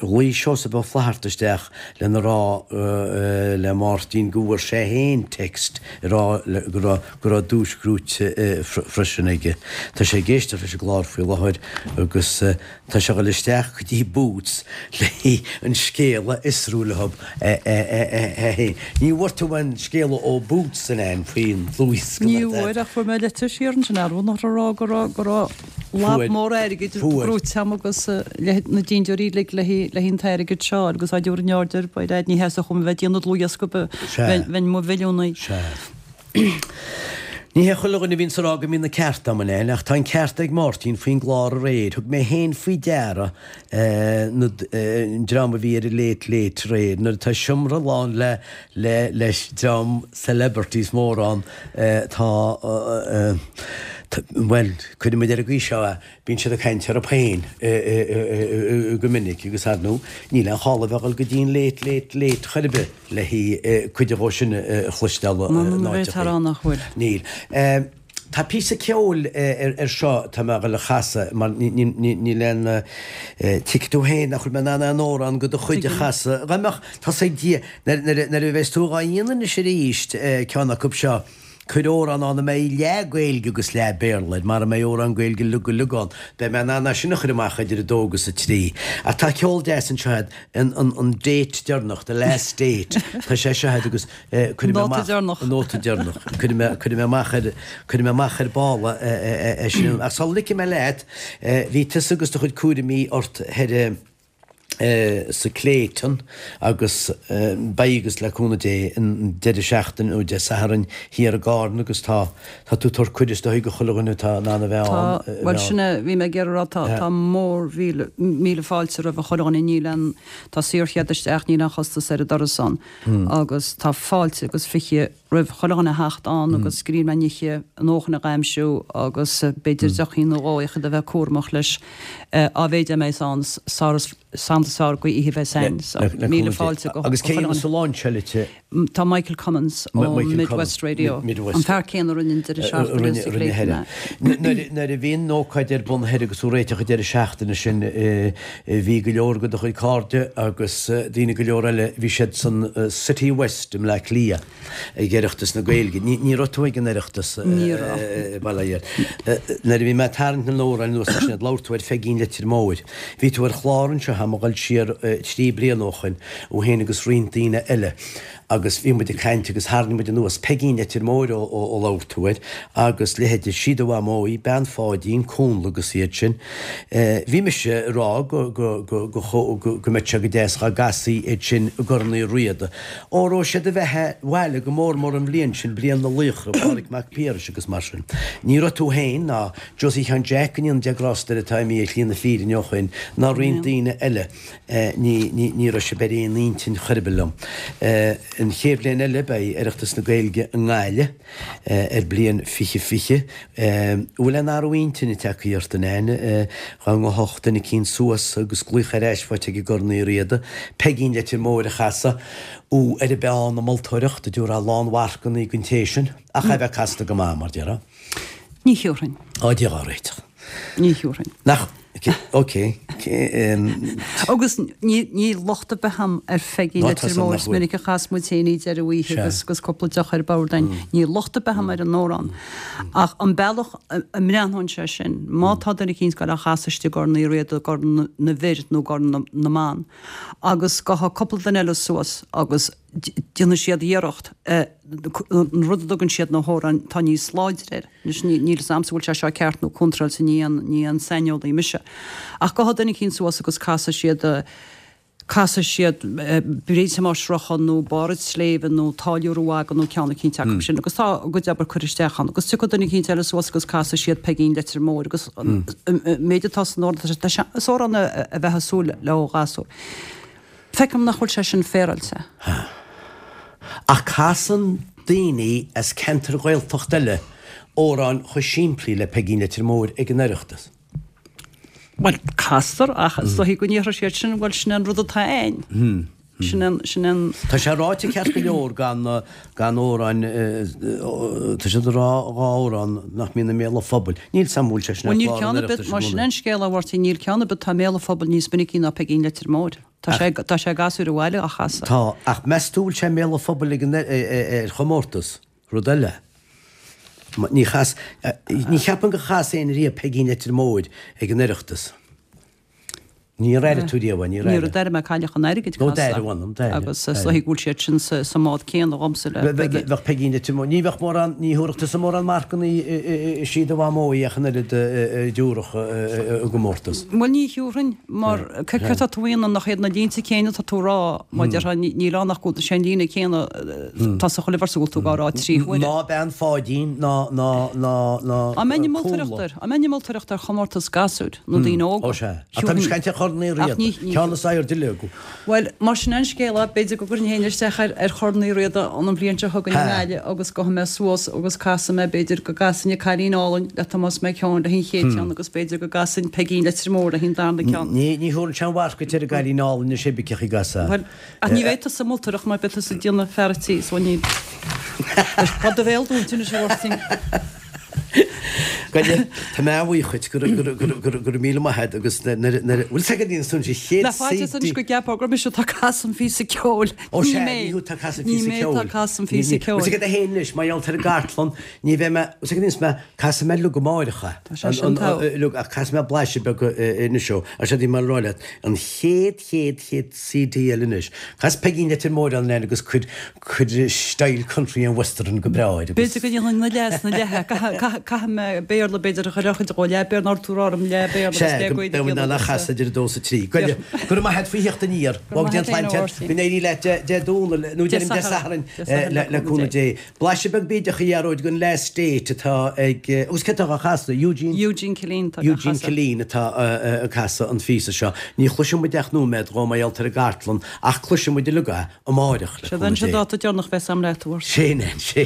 Ghlaoigh Seosamh Ó Flatharta isteach lena rá le Máirtín go bhfuair sé féin text ag rá go raibh go raibh duais gnóite freisin aige. Tá sé ag éisteacht leis an gclár faoi láthair agus tá sé ag dul isteach go dtí Boots le an scéal a fhiosrú leo féin. Ní bhfuair tú aon scéala ó Boots an ea faoin dlúthdhiosca? Ní bhfuair ach fuair mé litir siar ansin ar a rá go raibh go raibh lab mór airgid gnóite agam agus le na dintiúirí uilig le haghaidh an t-airgead seo agus á dtabhairt in airde ar by dad ní theastódh uaim a bheith ag déanamh dlúthdhiosca bheinn i mo mhilliúnaí. Sea. Ní hé chuile dhuine a bhíonns ag rá go mbíonn an ceart a'm, a Nan, ach tá an ceart ag Máirtín faoin gclár aréir. Thug mé féin faoi deara na, an dream a bhí ar an Late Late aréir. Nuair atá seomra lán le, le, le dream celebrities mórán, tá, bhuel, cuirfidh muid ar an gcaoi seo é, Bíonn siad ag caint orthu féin go minic agus ar ndóigh níl aon chall a bheith ag dul go dtí an Late Late Late chor ar bith le cuid dhó sin a chloisteáil in áiteachaí. Níl. Tá píosa ceoil ar seo atá mé a dhul a chasadh mar níl aon tuigfidh tú féin nach bhfuil mé in ann aon amhrán de do chuid a chasadh. Dá mbeadh, tá's ag Dia, nuair a bheas tú dhá dhéanamh anois arís ceann acu seo, Cuir amhrán ann a mbeidh leath Gaeilge agus leath Béarla air, mara mbeidh amhrán Gaeilge uilig go uilig ann, beidh mé in ann é sin a chur amach idir a dó agus a trí. Ach tá ceol deas anseo agat, an, an, an date deireanach, the last date, tá sé seo agat agus eh, cuirfidh mé amach, deireanach. an nóta deireanach, cuirfidh mé, cuirfidh mé amach ar, cuirfidh mé amach ar ball é, é, é, é sin. Ach sula ligfidh mé leat, eh, bhí tusa agus do chuid cúraimí ort thoir, eh, sa Clayton agus beidh agus le cúnamh Dé an deireadh seachtaine nó Dé Sathairn thiar i gCarna agus tá tá tú ag tabhairt cuireadh is dóigh do chuile dhuine atá in ann a bheith ann. Tá, bhuel sin é, bhí mé ag iarraidh a rá tá tá mór mhíle míle fáilte roimh chuile dhuine níl aon tá saorchead isteach níl aon chostas ar an doras ann agus tá fáilte agus 20 roimh chuile dhuine a theacht ann agus grian na n-oíche a ndóthain a dh'aimsiú agus b'fhéidir deochín nó dhó ach iad a bheith cúramach leis á mhéid a mbeas ann sár is is fearr go oíche bheas ann. So, míle fáilte go Agus cé a dhéanfas an lainseáil? Tá Michael Cummins ó Midwest Radio, an fear céanna a rinne an deireadh seachtaine sa Clayton. Nuair a bhí an ócáid ar bun thoir agus tú réiteach an deireadh seachtaine sin bhí go leor de do chuid cairde agus daoine go leor eile, bhí siad san City West i mBleá Cliath ag Oireachtas na Gaeilge. Ní raibh tú ag an Oireachtas Ní raibh. Bail ó Dhia ort. Nuair a bhí mé ag tarraingt na n-amhrán anuas ansin, labhair tú ar Pheigín Leitir Móir. Bhí tú ar chlár anseo, tá mé ag dul siar 3 bliana ó shoin, thú féin agus roinnt daoine eile. Agus bhí muid ag caint agus tharraing muid anuas Peigín Leitir Móir ó labhair tú air agus leithéide Sí do Mhamó í, Bean Pháidín, Cúnla agus iad sin. Bhí mise ag rá go go go go go mbeadh sé go deas dhá gcasfaí iad sin i gCorn Uí Riada. Ó raibh siad a bheith a' bhaile go mór mór an bhliain sin, bliain na laochra, Pádraig Mac Piarais agus mar sin. Ní raibh tú féin ná Josie Sheáin Jeaic, go ndéana Dia grásta air atá imithe ar shlí na fírinne ó shoin, ná roinnt daoine eile. Ní, ní, ní raibh sibh ar aon intinn chor ar bith liom. An chéad bhliain eile beidh Oireachtas na Gaeilge i nGaillimh ar bliain 2020. An bhfuil aon athrú intinne tagtha ort, a Nan? Dhá ngabhfadh duine eicínt suas agus glaoch ar ais faighte ag i gCorn Uí Riada, Peigín Leitir Móir a chasadh, ó ar an bpeann a moltóireacht, a dtabharfá lánmharcanna don té sin, ach é bheith casta go maith, mar déarfá. Ní thiúrfainn. Á, Dia dhá réiteach. Ní thiúrfainn. Nach. Ok. Agus níl locht ar bith a'm ar Pheigín Leitir Móir, is minic a chas muid féin í deireadh oíche agus agus cúpla deoch ar bord a'inn. Níl locht ar bith a'm ar an amhrán. Ach an bealach a mbreathnóinn sé sin, má tá duine eicínt ag goil á chasadh istigh i gCorn Uí Riada, i gCorn na bhFir nó i gCorn na mBan, agus gabhfaidh cúpla duine eile suas agus déanfaidh siad iarracht an rud a dtugann siad na hamhráin atá níos láidre air. Anois níl fhios a'msa bhfuil sé seo ceart nó contráilte, ní aon ní aon saineolaí mise. Ach gabhfaidh duine eicínt suas agus casfaidh siad casfaidh siad Bríd Thomáis Rochan nó Barr an tSléibhe nó Táilliúir an Mhagaidh nó ceann eicínt acu sin agus tá a gcuid obair curtha isteach ann agus tiocfaidh duine eicínt eile suas agus casfaidh siad Peigín Leitir Móir agus an méid atá san amhrán, tá sé, is amhrán a bheifeá ag súil le ó ghasúr. Feicim nach bhfuil sé sin féaráilte. Ach casann daoine as ceantair Ghaeltachta eile amhráin chomh simplí le Peigín Leitir Móir ag an Oireachtas. Bhuel, castar, ach is dóichí go ndéarfaidh siad sin, bhuel, sin é an rud atá a'inn. Sin an, sin an. Tá sé ráite ceart go leor gan, gan amhráin, tá siad ag rá dhá amhrán nach mbíonn i mbéal an phobail. Níl 's a'm an bhfuil sé sin ar chlár an Oireachtais i gcónaí. Bhuel, níl ceann ar bith, mar sin é an scéal, a Mháirtín, níl ceann ar bith atá i mbéal an phobail níos minicí ná Peigín Leitir Móir. Tá sé, tá sé ag gasúir an bhaile á chasadh. Tá, ach meas tú bhfuil sé i mbéal an phobail ag an, ar chomórtas? Rud eile. Ní chas, ní cheapaim gur chas éinne riamh Peigín Leitir Móir ag an Oireachtas. Níor airigh tú riamh é, níor airigh. Níor airigh mé Cailleach an Airgid casta. Nó d'airigh, bhuel, d'airigh. Agus is dóichí go bhfuil siad sin sa mbád céanna dhomsa le Peigín. Bheadh Peigín Leitir Móir, ní bheadh mórán, ní thabharfadh tusa mórán marcanna is í do mhamó í ach an oiread a dtabharfadh i gcomórtas. Bhuel ní thiúrfainn, mar céard atá tú a dhéanamh nach iad na línte céanna atá tú a rá, má déarfá níl ann ach go bhfuil sé an líne céanna atá sa chuile véarsa go bhfuil tú á rá trí huaire. Ná bean Pháidín ná ná ná ná Á mbeinn ag moltóireacht air, á mbeinn ag moltóireacht ar chomórtas gasúir nó daoine óga. Ó sea. Ach táimid ag caint ar Chorn Uí Riada. Ceann is airde uilig. Bhuel, mar sin an scéal é, b'fhéidir go gcuirfinn féin isteach ar ar Chorn Uí Riada an bhliain seo chugainn i nGaillimh agus gabhfaidh mé suas agus casfaidh mé, b'fhéidir go gcasfainn An Cailín Álainn le Tomás Mac Eoin le haghaidh an chéad cheann agus b'fhéidir go gcasfainn Peigín Leitir Móir le haghaidh an darna ceann. Ní ní thabharfainn aon mharc duit ar an gCailín Álainn anois cibé cé a chasfá. Bhuel, ach ní bheidh tusa ag moltóireacht mar beidh tusa ag déanamh fear an tí, so ní. Tá do bhéal dúnta anois a Mháirtín. Goile, tá mé an-bhuíoch dhuit, go raibh míle maith agat agus nuair a, bhfuil 's agat an san sé chéad Ná faitíos anois go gceapfá gur mise atá ag casadh an phíosa ceoil. Ó sea, ní thú atá ag casadh an phíosa ceoil. Ní mé atá ag casadh an phíosa ceoil. Bhfuil 's agat féin anois, mar gheall ar an gcartlann, ní bheidh mé, bhfuil 's agat anois mé, casfaidh mé uilig amáireach é. Tá sé sin togha. Uilig, ach casfaidh mé blaiseadh beag anois ó. Ach sé bhí mé ag rá leat, an chéad, chéad, chéad CD eile anois, cas Peigín Leitir Móir ann agus cuir, Cuir style country and western go breá air agus. B'fhéidir go ndéanfainn na leath is na leath. Caithfidh mé Béarla b'fhéidir a chur ar chuid dhó, leath Béarla nár tú rá orm leath Béarla agus leath Gaeilge a dhéanamh agus. Sea, idir a dó is a trí. Goile, go raibh maith agat faoi theacht aniar. Go raibh maith agat féin, a Mháirtín. Go n-éirí leat Dé Domhnaigh, nó deirim Dé Sathairn le cúnamh Dé. Blaiseadh beag bídeach a Ghearóid den Last Date atá ag, agus cé atá á chasadh? Eugene? Eugene Killeen atá á chasadh. Eugene Killeen atá ag casadh an phíosa seo. Ní chloisfidh muid ach nóiméad dhó mar gheall ar an gcartlann ach cloisfidh muid uilig é. Amáireach, le cúnamh Dé. Sé an dáta deireanach a bheas a'm leat, a Mháirtín. Sin é, sé.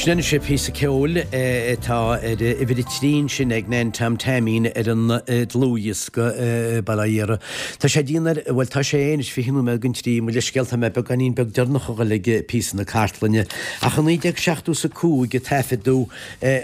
Sin anois píosa ceoil atá ar uimhir a 3 ansin ag Nan Tom Taimín ar an dlúthdhiosca, bail ó Dhia air. Tá sé dian ar, bhuel tá sé anois 20 nóiméad don trí, mo leithscéal tá mé beagáinín beag deireanach a dhul ag píosa na cartlainne. Ach i 1975 a taifeadadh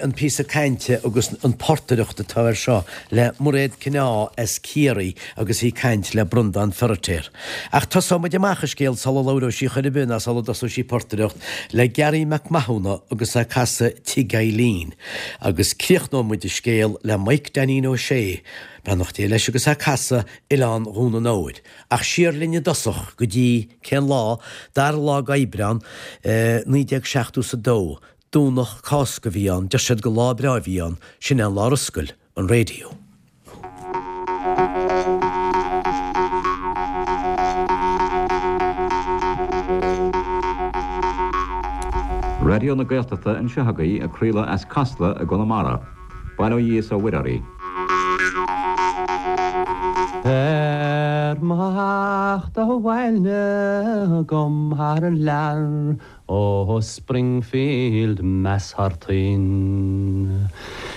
an píosa cainte agus an portaireacht atá air seo le Mairéad Kyne as Ciarraí agus í ag caint le Breandán Feiritéar. Ach tosóidh muid amach an scéal sula labhróidh sí chor ar bith ná sula dtosóidh sí ag portaireacht le Garry Mac Mathúna agus é ag casadh Tigh Eileen. Agus críochnóidh muid an scéal le Mike Dainín Ó Sé, beannacht Dé leis, agus é ag casadh Oileán Dhún an Óir. Ach siar linn i dtosach go dtí, cén lá? Dara lá d'Aibreán, 1972. Domhnach Cásca a bhí ann, deir siad gur lá breá a bhí ann, sin é an lá ar oscail an raidió. Raidió na Gaeltachta anseo agaibh ag craoladh as Casla i gConamara. Bail ó Dhia is ó Mhuire oraibh. Ar mo theacht abhaile agam thar lear Ó Springfield Mass thar toinn.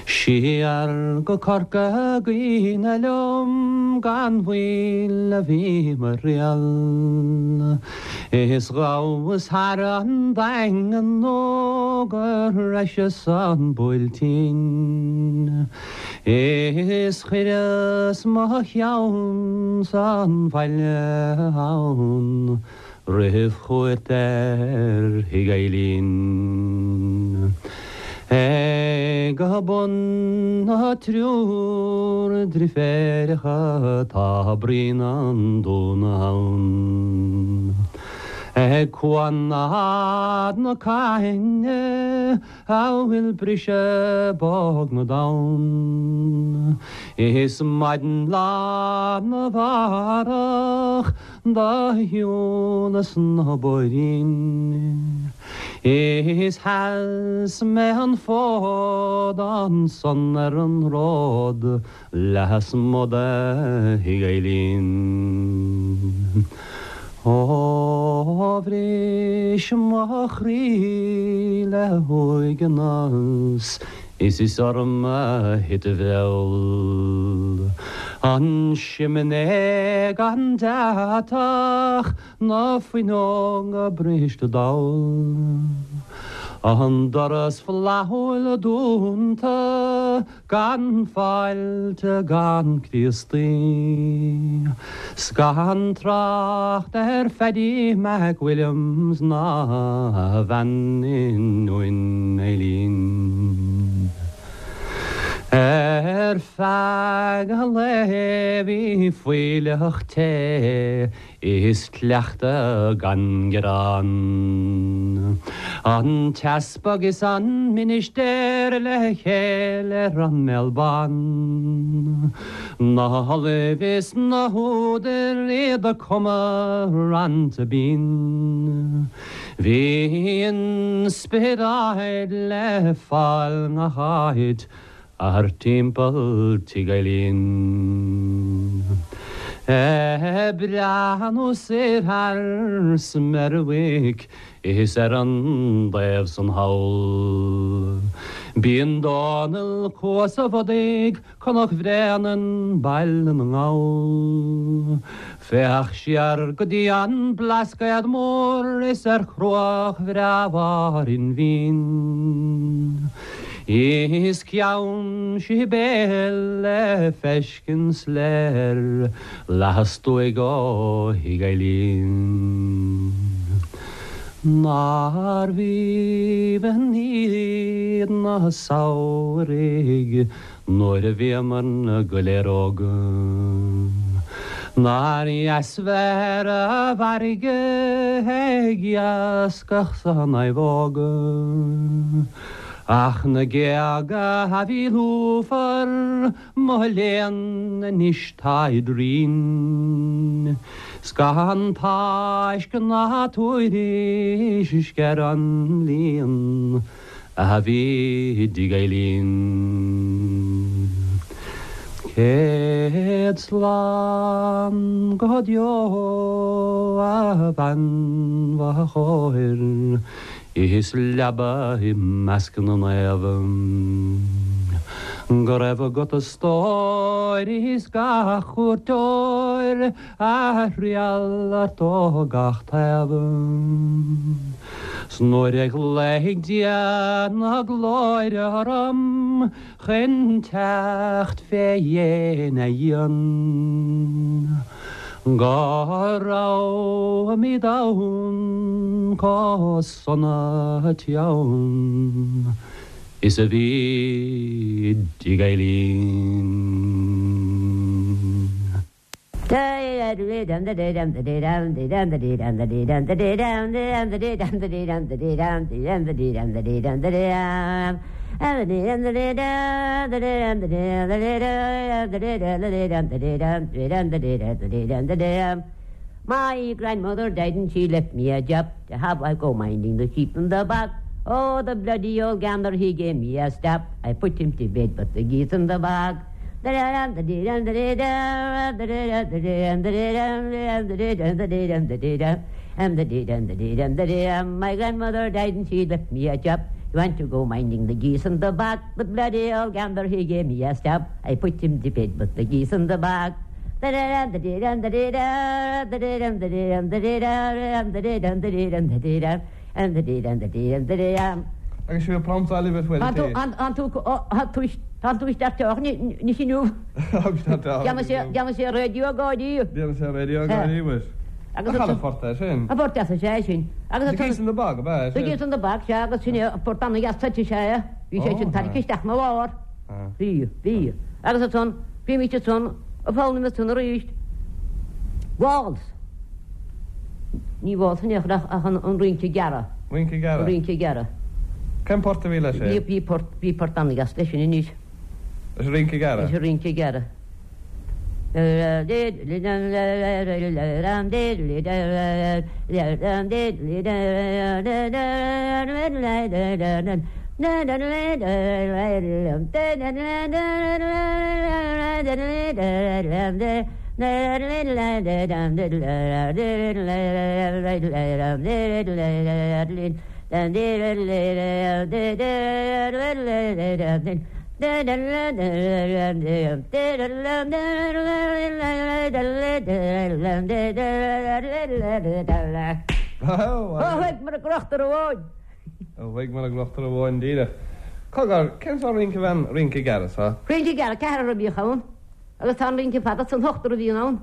Siar go Corca Dhuibhne liom gan mhoill a bhí mo thriall. Is ghabhas thar an Daingean nó go sroiseas an Buailtín. Is chuireas mo cheann san bhaile ann. Roimh chuairt ar Thigh Eilín. Ag bun na dtriúr driféireacha tá bruíon an Dúna ann. Ag cuan na Caithne a bhfuil briseadh bog na dtonn. Is maidin lá 'na mhárach Do shiúlas na bóithrín Is sheas mé an fód ansan ar an ród lasmuigh de Thigh Eilín. Ó bhris mo chroí le huaigneas Is is orm a thit a bhfeall. An simné gan deatach, na fuinneoga briste dall. An doras flaithiúil dúnta, gan fáilte gan Críostaí. 'S gan trácht ar Phaddy Mac Williams ná a bhean i nDún Eilín. Ar feadh an lae bhí fuílleach te Is cleachtadh gan gearán. An t-easpag is an ministéir le chéile ar an mbéal bán. Na hollaimh is na húdair iad ag cumadh rannta binn. Bhí inspioráid le fáil ngach áit Thart timpeall Tigh Eilín. Ag breathnú soir thar Smerwick is ar an dtaobh san thall. Bíonn Dónal Cuas a' Bhodaigh, Cnoc Bhréanainn, Baile na nGall. Féach siar go dtí an Blascaod Mór is ar chruach bhreá Bharr Fhinn. Is Ceann Sibéal le feiscint soiléir lastuaidh ó Thigh Eilín. Nárbh aoibhinn iad na samhraidh nuair a bhíomar go léir óg. Nár dheas bheith ar an bhfarraige ag iascach san naomhóg. Ach na géaga a bhí lúfar, mo léan, anois táid righin. 'S gan tásc ná tuairisc ar an líon a bhí i dTigh Eilín. Céad slán go deo a bhean chóir. Is leaba i measc na naomh. Go raibh agat a stór is gach cuairteoir a thriall ort ó gach taobh. 'S nuair a ghlaofaidh Dia na glóire orm chun teacht fé dhéin a dhíon. Go raibhimid ann chomh sona teann is a bhí i dtigh Eileen. My grandmother died and she left me a job to have I go minding the sheep in the bog. Oh, the bloody old gander, he gave me a stab. I put him to bed, but the geese in the bog. My grandmother died and she left me a job. You want to go minding the geese in the bog, the bloody old gander, he gave me a stab. I put him to bed, but the geese in the bog. Agus sibh ag pramptáil libh bhfuil Tá tú isteach teach anois inniu. Déanfaidh sé raidió gáirí. Déanfaidh sé raidió gáirí muis. Agus an port é sin? An port deas is ea é sin. Agus The Geese in the Bog, ab ea é sin? The Geese in the Bog, sea, agus sin é an port an-dheas suite is ea é. Bhí sé sin tarraingthe isteach 'na lár. Bhí, bhí. Agus ansan, bhímís ansan ag foghlaim ansan arís. Waltz. Ní waltz in aon chor ach an rince gearra. Rince gearra? An rince gearra. Cén port a bhí leis sin? Bhí, bhí port, bhí port an-dheas leis sin anois. Leis an rince gearra? Leis an rince gearra. Ó, mar a gcrochtar amháin. Ó, mar a gcrochtar amháin díreach. Cogar, cén sórt rince a bhí an rince gearr seo? Rince gearr, ceathrar a bhíodh ann. Agus tá an rince fada san ochtar a bhíonn ann.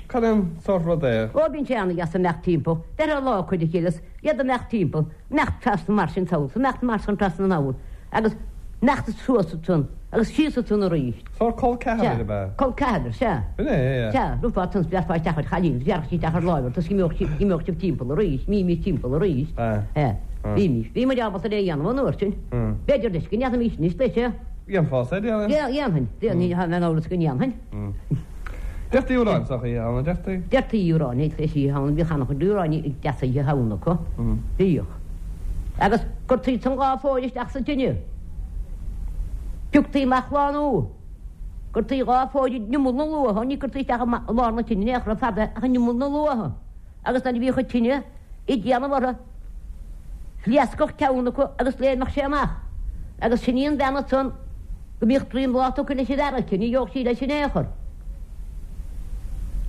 Cad é an sórt rud é? Ó, bíonn sé an-dheas imeacht timpeall. Bheirtheá lá cuid a chéile is iad imeacht timpeall, imeacht trasna mar sin sall, imeacht mar san trasna anall, agus imeacht suas ansan agus síos ansan arís. Sórt col ceathrair ab ea? Col ceathrair, sea. B'in é, é. Sea, rithfeá ansan is bhearfá isteach ar chailín is bhearfadh sí isteach ar láimh ort is imeodh sibh timpeall arís, imímis timpeall arís. Sea. Bhímis. Bhí muid ábalta é a dhéanamh an uair sin. B'fhéidir leis go ndéanfaimis anois leis é. Dhéanfása é, déarfainn. Dhéanfainn. Ní bheinn in amhras go ndéanfainn. Deirtí amhráin sa Oíche Shamhna, deirtí? Deirtí amhráin ag Oíche Shamhna, bhíodh an-chuid amhráin deasa Oíche Shamhna acu. Bhíodh. Agus cuirtí san dhá phóire isteach sa tine. Pioctaí amach lá nua. Cuirtí dhá phóire in imeall na luatha, ní cuirtí isteach i lár na tine in aon chor fada ach in imeall na luatha. Agus nuair a bhíodh an tine ag déanamh orthu, phléascfadh ceann acu agus léimfeadh sé amach. Agus sin í an bhean ansan go mbíodh droim lá tugtha leis an bhfear aici, ní gheobhadh sí leis in aon chor.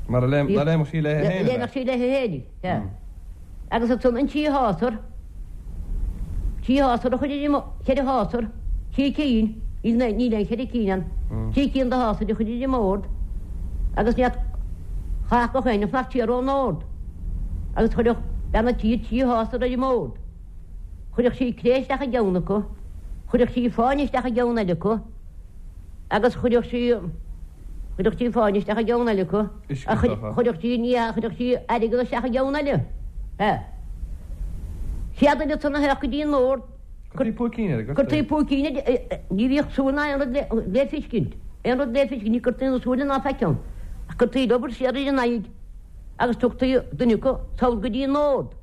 Mar a léimfeadh sí léi féin. Léimfeadh sí léi féin, sea. Agus ansan an trí shásar, trí shásar a chuir ar an, cheithre shásar, trí cinn, níl aon cheithre cinn ann, trí cinn de shásar a chuir ar an mbord agus ní chaithfeadh gach éinne fanacht siar ón mbord. Agus chuirfeadh bean an tí trí shásar ar an mbord. Chuirfeadh sí cré isteach i gceann acu, chuirfeadh sí fáinne isteach i gceann eile acu, agus chuirfeadh sí, chuirfeadh sí fáinne isteach i gceann eile acu, chuirfeadh sí, ní hea, chuirfeadh sí airgead isteach i gceann eile. Sea. Chéad duine ansan a théadh go dtí an mbord, Cuirtí púicín air, cuirtí púicín air, ní bhíodh súil ná aon rud le feiscint, aon rud le feiscint, ní cuirtí na súile ná faic ann, ach cuirtí liobar siar ar a n-aghaidh agus tugtaí duine acu sall go dtí an mbord.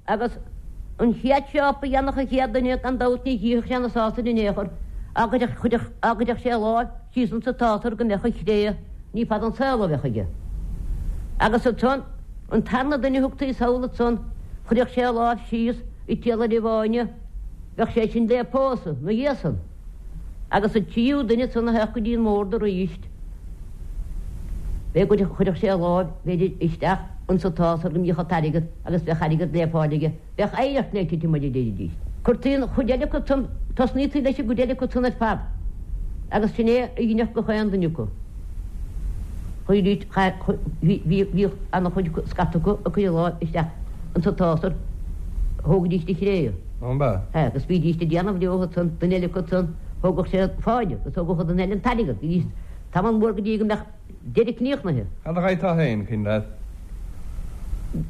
Agus an chéad step a dhéanfadh an chéad duine, gan dabht ní chífeadh sé na sásair in aon chor, á gcuirfeadh sé a láimh síos insa tsásar go mbeadh an chré, ní fada an saol a bheadh aige. Agus ansan, an tarna duine a thugtaí sall ansan, chuirfeadh sé a láimh síos. An t-iarlaire bháine, bheadh sé sin le pósadh 'na dhiaidh san. Agus an tríú duine san a theacht go dtí an mbord aríst, b'é go chuirfeadh sé a láimh, b'fhéidir, isteach insa tsásar go mbíodh an t-airgead agus bheadh airgead le fáil aige, bheadh oidhreacht le titim air a deiridís. Cuirtí an chuid eile acu san, tosnaítí leis an gcuid eile acu san ar fad agus sin é a dheineadh gach aon duine acu. Chuiridís, bhíodh ana-chuid scata acu ag cur a láimh isteach insa tsásar, thógaidís de chré. An b'ea? Sea, agus bhídís ag déanamh leo ansan, duine eile acu san, thógadh sé an fáinne agus thógadh an duine eile an t-airgead, bhídís tamall mór go dtí go mbeadh deireadh críochnaithe. Cad a gheibhteá féin, cuimhin leat?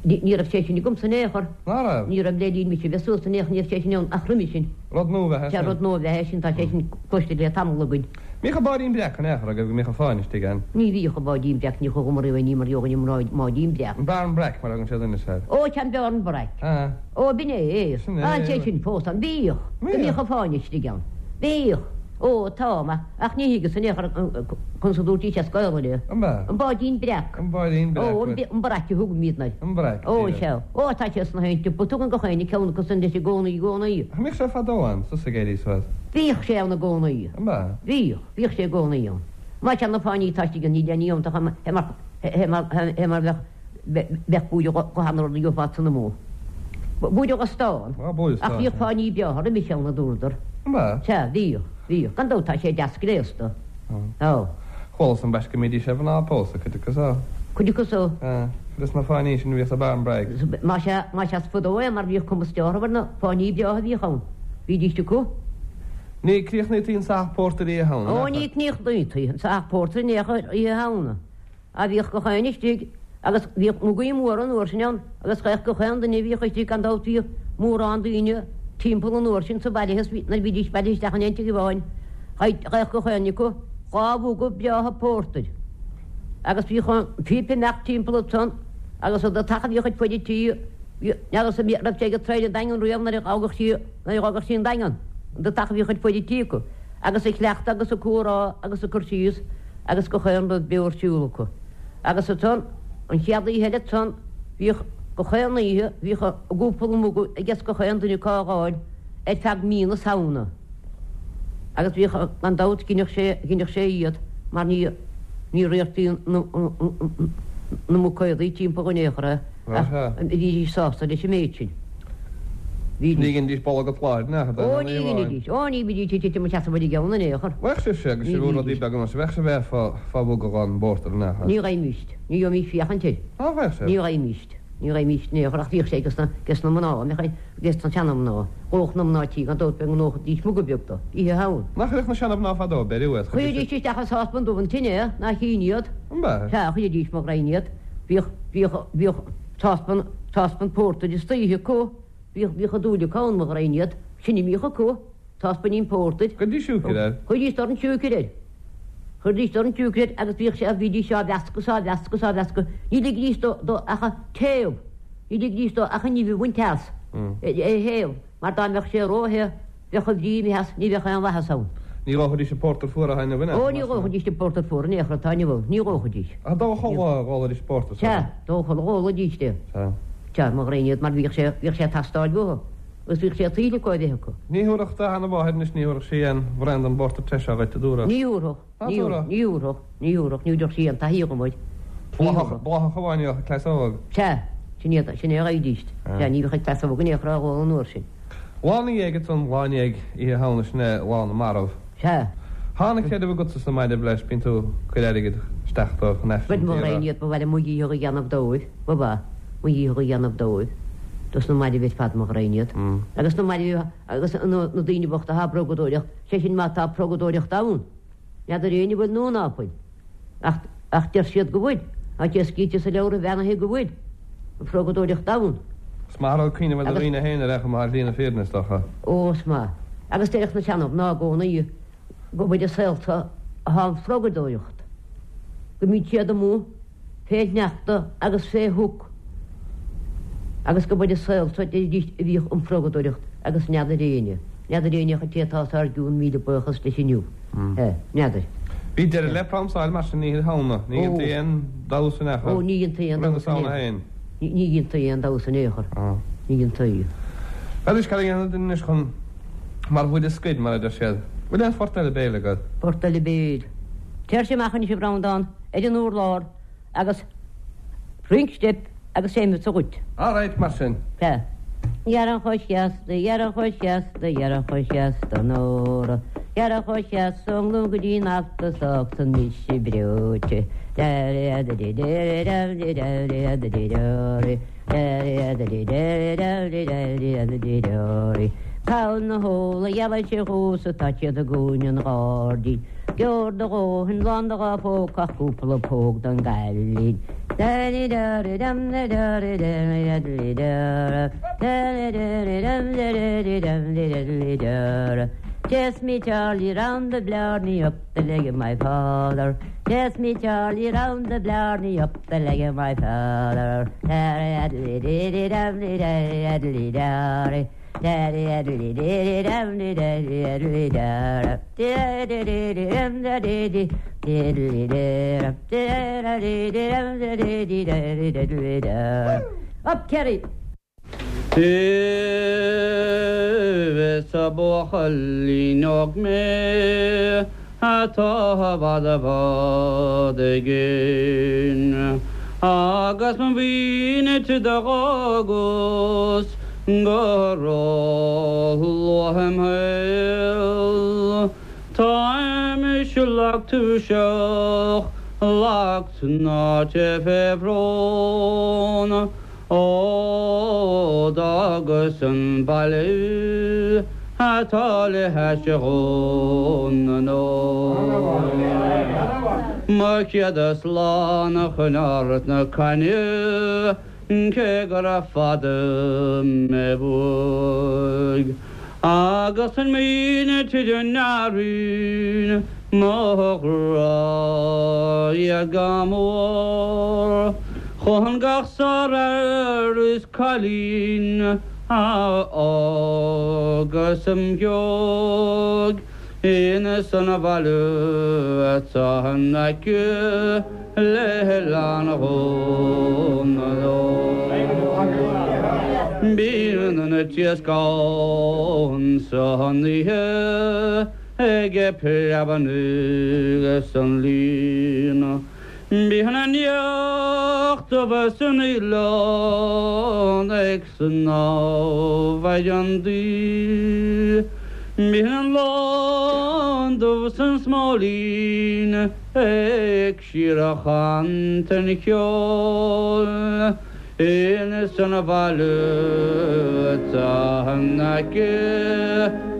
Ní raibh sé sin agamsa in aon chor. Ná raibh? Ní raibh le linn mise bheith suas in aon chor, ní raibh sé sin ann ach roimhe sin. Rud nua ab ea é sin? Sea, rud nua ab ea é sin, tá sé sin cloiste le tamall againn. Mbíodh an báidín breac in aon chor agaibh go mbíodh an fáinne istigh ann? Ní bhíodh an báidín breac, ní chuaigh riamh ní mar gheobhainn an mbáidín breac. An bearn breac mar a thugann siad anois air. Ó, sea, an bearn breac. Sea. Ó, b'in é. Sin é. Tá sé sin fós ann. Bhíodh. Go mbíodh an fáinne istigh ann. Bhíodh. Ó, tá, ma, ach ní thuigeas in aon chor conas a dúirtís as Gaolainn é. An b'ea? An báidín breac. An báidín breac. Ó, an breac a thugaimídne air. An breac, Ó, sea. Ó, tá sé sna haon tsiopa. Tugann gach éinne ceann acu san leis i gcónaí, i gcónaí. Ach an mbíodh sé fadó ann, suas ag éirí suas? Bhíodh sé ann i gcónaí. An b'ea? Bhíodh. Bhíodh sé i gcónaí ann. Má tá na fáinní atá istigh ann, níl aon ní iontach ann, é mar, é mar, é mar bheadh, bheadh buaidreamh go han rud a gheofá san amuigh. Buaidreamh go stán. Á, buaidreamh Ach stáin, bhíodh fáinní breátha roimis ann, a dúradar. An b'ea? Sea, bhíodh, bhíodh. Gan dabht tá sé deas gléasta. Á. Chualas ambaiste go mbídís ar mhná ag pósadh, cuid acu so. Cuid acu so. Á, cuid de na fáinní sin a bhíodh sa bearn breac. Más ea, más ea is fadó é mar bhíodh cuma orthu ar na fáinní breátha a bhíodh ann. Bhídís acu. Ní críochnaítí an sáith pórtair Oíche Shamhna, Ó, ní críochnaítí an sáith pórtair in aon chor Oíche Shamhna. Á bhíodh gach éinne istigh agus bhíodh mugaí móra an uair sin ann agus gheibheadh gach aon duine a bhíodh istigh gan dabht bhíodh mórán daoine timpeall an uair sin sa bhaile is nuair a bhídís bailithe isteach in aon tigh amháin gheibheadh gach éinne acu dha mhuga breátha pórtair agus bhíodh an phíp ag imeacht timpeall ansan agus an deatach a bhíodh ag fuid an tí n'fheadar an raibh sé ag traein an Daingean riamh nuair a fhágadh sí nuair a fhágadh sí an Daingean an deatach a bhíodh ag fuid an tí acu agus ag cleachtadh agus ag comhrá agus ag cur síos agus gach aon rud beo ar siúl acu. Agus ansan, an chéad oíche eile ansan, bhíodh, gach aon oíche, bhíodh a gcúpla muga aiges gach aon duine acu á dh'fháil ar feadh mí na Samhna. Agus bhíodh, gan dabht, ghineadh sé, ghineadh sé iad mar ní, ní riartaí na, na muicéadaí timpeall in aon chor é. Ach bhídís sásta leis an méid sin. Bhídís. Ní ghinidís bolg an tsláir in aon chor, Ó, ní ghinidís. Ó, ní bhídís ag titim isteach sa bhuille gceann in aon chor. Bheadh sibhse agus sibh rudaí beaga mar sin, bheadh sibh air fá mhuga dhon bpórtar in aon chor. Ní gheibhimíst. Ní gheibhimíst féachaint air. Ná bheadh sibh? Ní gheibhimíst. Ní gheibhimíst in aon chor ach bhíodh sé ages na mná, bheadh ages na seana-mhná. Dhódh na mná tí gan dabht go ndóidís muga beag dó, oíche Shamhna. Nach gcuirfeadh na seana-mhná fadó beiriú iad? Chuiridís isteach i sáspan dubh an tine é, nach ionadh iad. An b'ea? Sea, chuiridís mo ghraidhin iad. Bhíodh, bhíodh, bhíodh sáspan, sáspan pórtair istoíche acu, bhíodh, bhíodh a dúil acu ann, mo ghraidhin iad, sin a mbíodh acu, sáspainín pórtair. Chuiridís siúcra air. Chuiridís dorn siúcra air. Chuiridís dorn siúcra air agus bhíodh sé, bhídís á mheascadh 's á mheascadh 's á mheascadh, ní ligidís dó, dó ach a théamh, ní ligidís dó ach an nimh a bhaint as, é a théamh, mar dá mbeadh sé ró-the, Bheadh a bhrí imithe as, ní bheadh aon mhaitheas ann. Ní dhófaidís an pórtar fuar atá inniu in aon chor. Ó, ní dhófaidís an pórtar fuar in aon chor atá inniu ann, ní dhófaidís. Ach dó chuile dhólaidís pórtar sa. Sea, dó chuile dhólaidís é. Sea. Sea, mo ghraidhin iad, mar bhíodh sé, bhíodh sé ag teastáil uathu, agus bhíodh sé tuillte acu a bheith acu. Ní thabharfadh do sheana-mháthair anois, ní thabharfadh sí aon bhraon den bpórtar te seo dhuit, a dúradh. Ní thabharfadh, ní thabharfadh, ní thabharfadh, ní thabharfadh, ní thabharfadh sí aon taithí dhom air. Ní thabharfadh. Bláthach amháin a bheadh ag cleasóg. Sea, sin iad, sin é a gheibhidís. Sea, ní bheadh ag cleasóg in aon chor á dh'ól an uair sin. Lá 'na dhiaidh ansan, lá i ndiaidh Oíche Shamhna, sin é Lá na Marbh. Sea. Thá an creideamh agatsa sna mairbh leis, bíonn tú ag cur airgid isteach dóibh chun Aifreann Bhuel, mo a ghraidhin iad, ba mhaith liom mo dhícheall a dhéanamh dóibh, ba mhaith, mo dhícheall a dhéanamh dóibh, dos na mairbh ar fad, mo ghraidhin iad. Agus na mairbh, agus na daoine bochta athá ag progadóireacht, sé sin má tá progadóireacht ann. N'fheadar éinne an bhfuil nó ná fuil. Ach, ach deir siad go bhfuil. Tá sé scríte sa leabhra bheannaithe go bhfuil an phrogadóireacht ann. Is maith an rud cuimhneamh ar do dhaoine féin ar aon chuma ar shlí na fírinne, is dócha. Ó, is maith. Agus deireadh na seana-mhná i gcónaí go bhfuil i saolta athá an phrogadóireacht, go mbíonn siad amuigh fé shneachta agus fé shioc agus go b'ar an saol so deiridís a bhíodh an phrogadóireacht agus n'fheadar éinne, n'fheadar éinne ach an té atá os ár gcionn míle buíochas leis inniu. N'fheadar. Bhí deireadh le pramsáil mar sin Oíche Shamhna. Ní dhéantaí aon damhsa in aon chor. Ó, ní dhéantaí aon Roimh na damhsa in Samhna aon féin. Ní dhéantaí aon damhsa in aon chor. Ní dhéantaí. Bhuel anois, cad a dhéanfaidh duine anois chun mar bhuille scoir, mar a deir siad. Bhfuil aon phort eile béil agat? Port eile béil. Téirse amach anois, a Bhreandán, ar an urlár agus rinc steip agus seinnfeadsa dhuit. All right, mar sin. Sea. Gearra chomh seasta, gearra chomh seasta, gearra chomh seasta, Nóra. Gearra chomh seasta ón nGlúin go dtí an Alta 's fágfaidh mise breoite. Cabhail na hóla ghealais dhomhsa tá siad i gcúinne an ghairdín. Gheobhair do dhóthain lán do dha phóca ach cúpla póg don gcailín. Chase me Charlie round the Blarney up the leg of my father. Chase me Charlie round the Blarney up the leg of my father. Up Kerry! Is buachaillín óg mé atá i bhfad i bhfad i gcéin agus mo mhuintir do dh'fhágas go ró-luath im shaol. Táimse lag tuirseach, lag tnáite fé bhrón. Ó d'fhágas an baile atá le hais Dhún na nGall. Mo chéad slán a choinneáil ort na cainne cé gura fada mé uaidh. Agus an mhuintir a n-airíonn mo ghrá iad go mór Chun gach sárfhear is cailín a fhágas im dhiaidh Ins an bhaile atá in aice le hOileán Dhún na nGall. Bíonn an t-iasc ann san oíche ag preabarnaigh san líon. Bíonn an each dubh san oileán ag snámh ar an dtaoi. Bíonn an lon dubh san smóilín ag síorchantain cheoil. Ins an bhaile atá in aice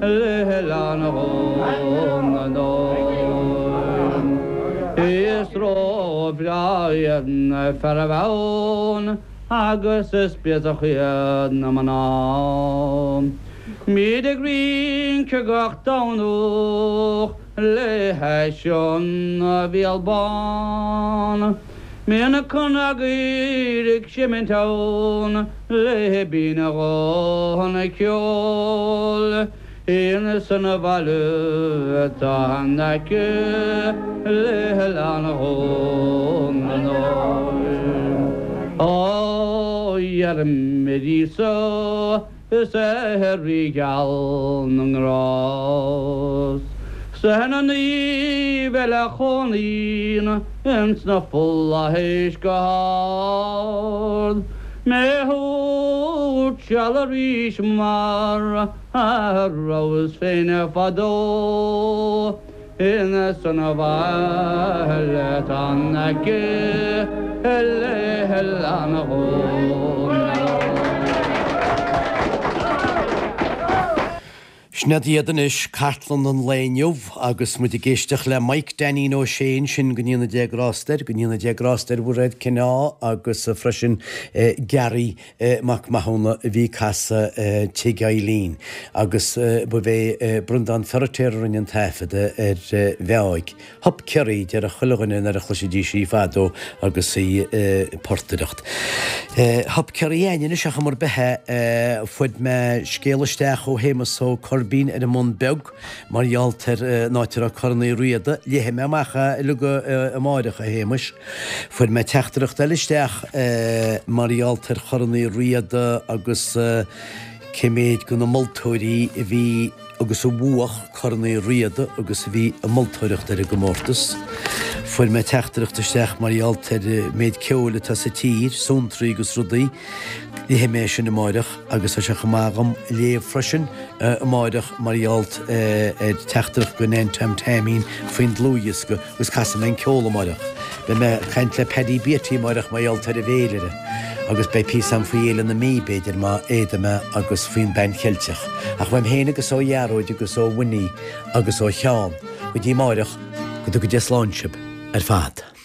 le hOileán Dhún na nGall. Is ró-bhreá iad na fearaibh ann agus is béasach iad na mná. Bíd ag rince gach Domhnach le hais an Bhéal Bán. Bíonn na cnagaoir ag seimint ann le binn a ghuthanna ceoil ins an bhaile atá in aice le hOileán Dhún na nGall. Ó iarraim ar Íosa Is é Rí geal na nGrást 's ar na naoimh eile a chónaíonn ins na flaithis go hard mé a thabhairt seal arís mar a rabhas féin fadó Ins an bhaile atá in aice le hOileán Dhún na nGall. Sin iad iad anois, cartlann an lae inniu agus muid ag éisteacht le Mike Dainín Ó Sé ansin, go ndéana Dia grásta air, go ndéana Dia grásta ar Mhuiréad Cineá agus freisin Garry Mac Mathúna a bhí ag casadh Tigh Eileen agus ba é Breandán Feiritéar a rinne an taifeadadh ar Mheáig. Hup Ciarraí, déarfadh chuile dhuine nuair a chloisfidís í fadó agus í ag portaireacht. Hup Ciarraí a'ainn anois ach mar bith é, fuair mé scéal isteach ó Shéamus Ó Coirbín ar an mBun Beag mar gheall ar an áit a raibh Corn Uí Riada. Léifidh mé amach é uilig amáireach, a Shéamuis. Fuair mé teachtaireacht eile isteach mar gheall ar Chorn Uí Riada agus. Cé méid de na moltóirí a bhí agus a bhuach Corn Uí Riada agus a bhí ag moltóireacht ar an gcomórtas. Fuair mé teachtaireacht isteach mar gheall ar an méid ceoil atá sa tír, suantraí agus rudaí. Léifidh mé sin amáireach agus tá sé chomh maith agam léamh freisin amáireach mar gheall ar teachtaireacht go Nan Tom Taimín faoin dlúthdhiosca agus casfaidh mé an ceol amáireach. Beidh mé ag caint le Paddy Beatty amáireach mar gheall ar an bhféilire agus beidh píosa agam faoi Fhéile na Mí b'fhéidir má fhéadfaidh mé agus faoin Bpan Cheilteach. Ach uaim féin agus ó Ghearóid agus ó Winnie agus ó Sheán go dtí amáireach go dtuga Dia slán sibh ar fad.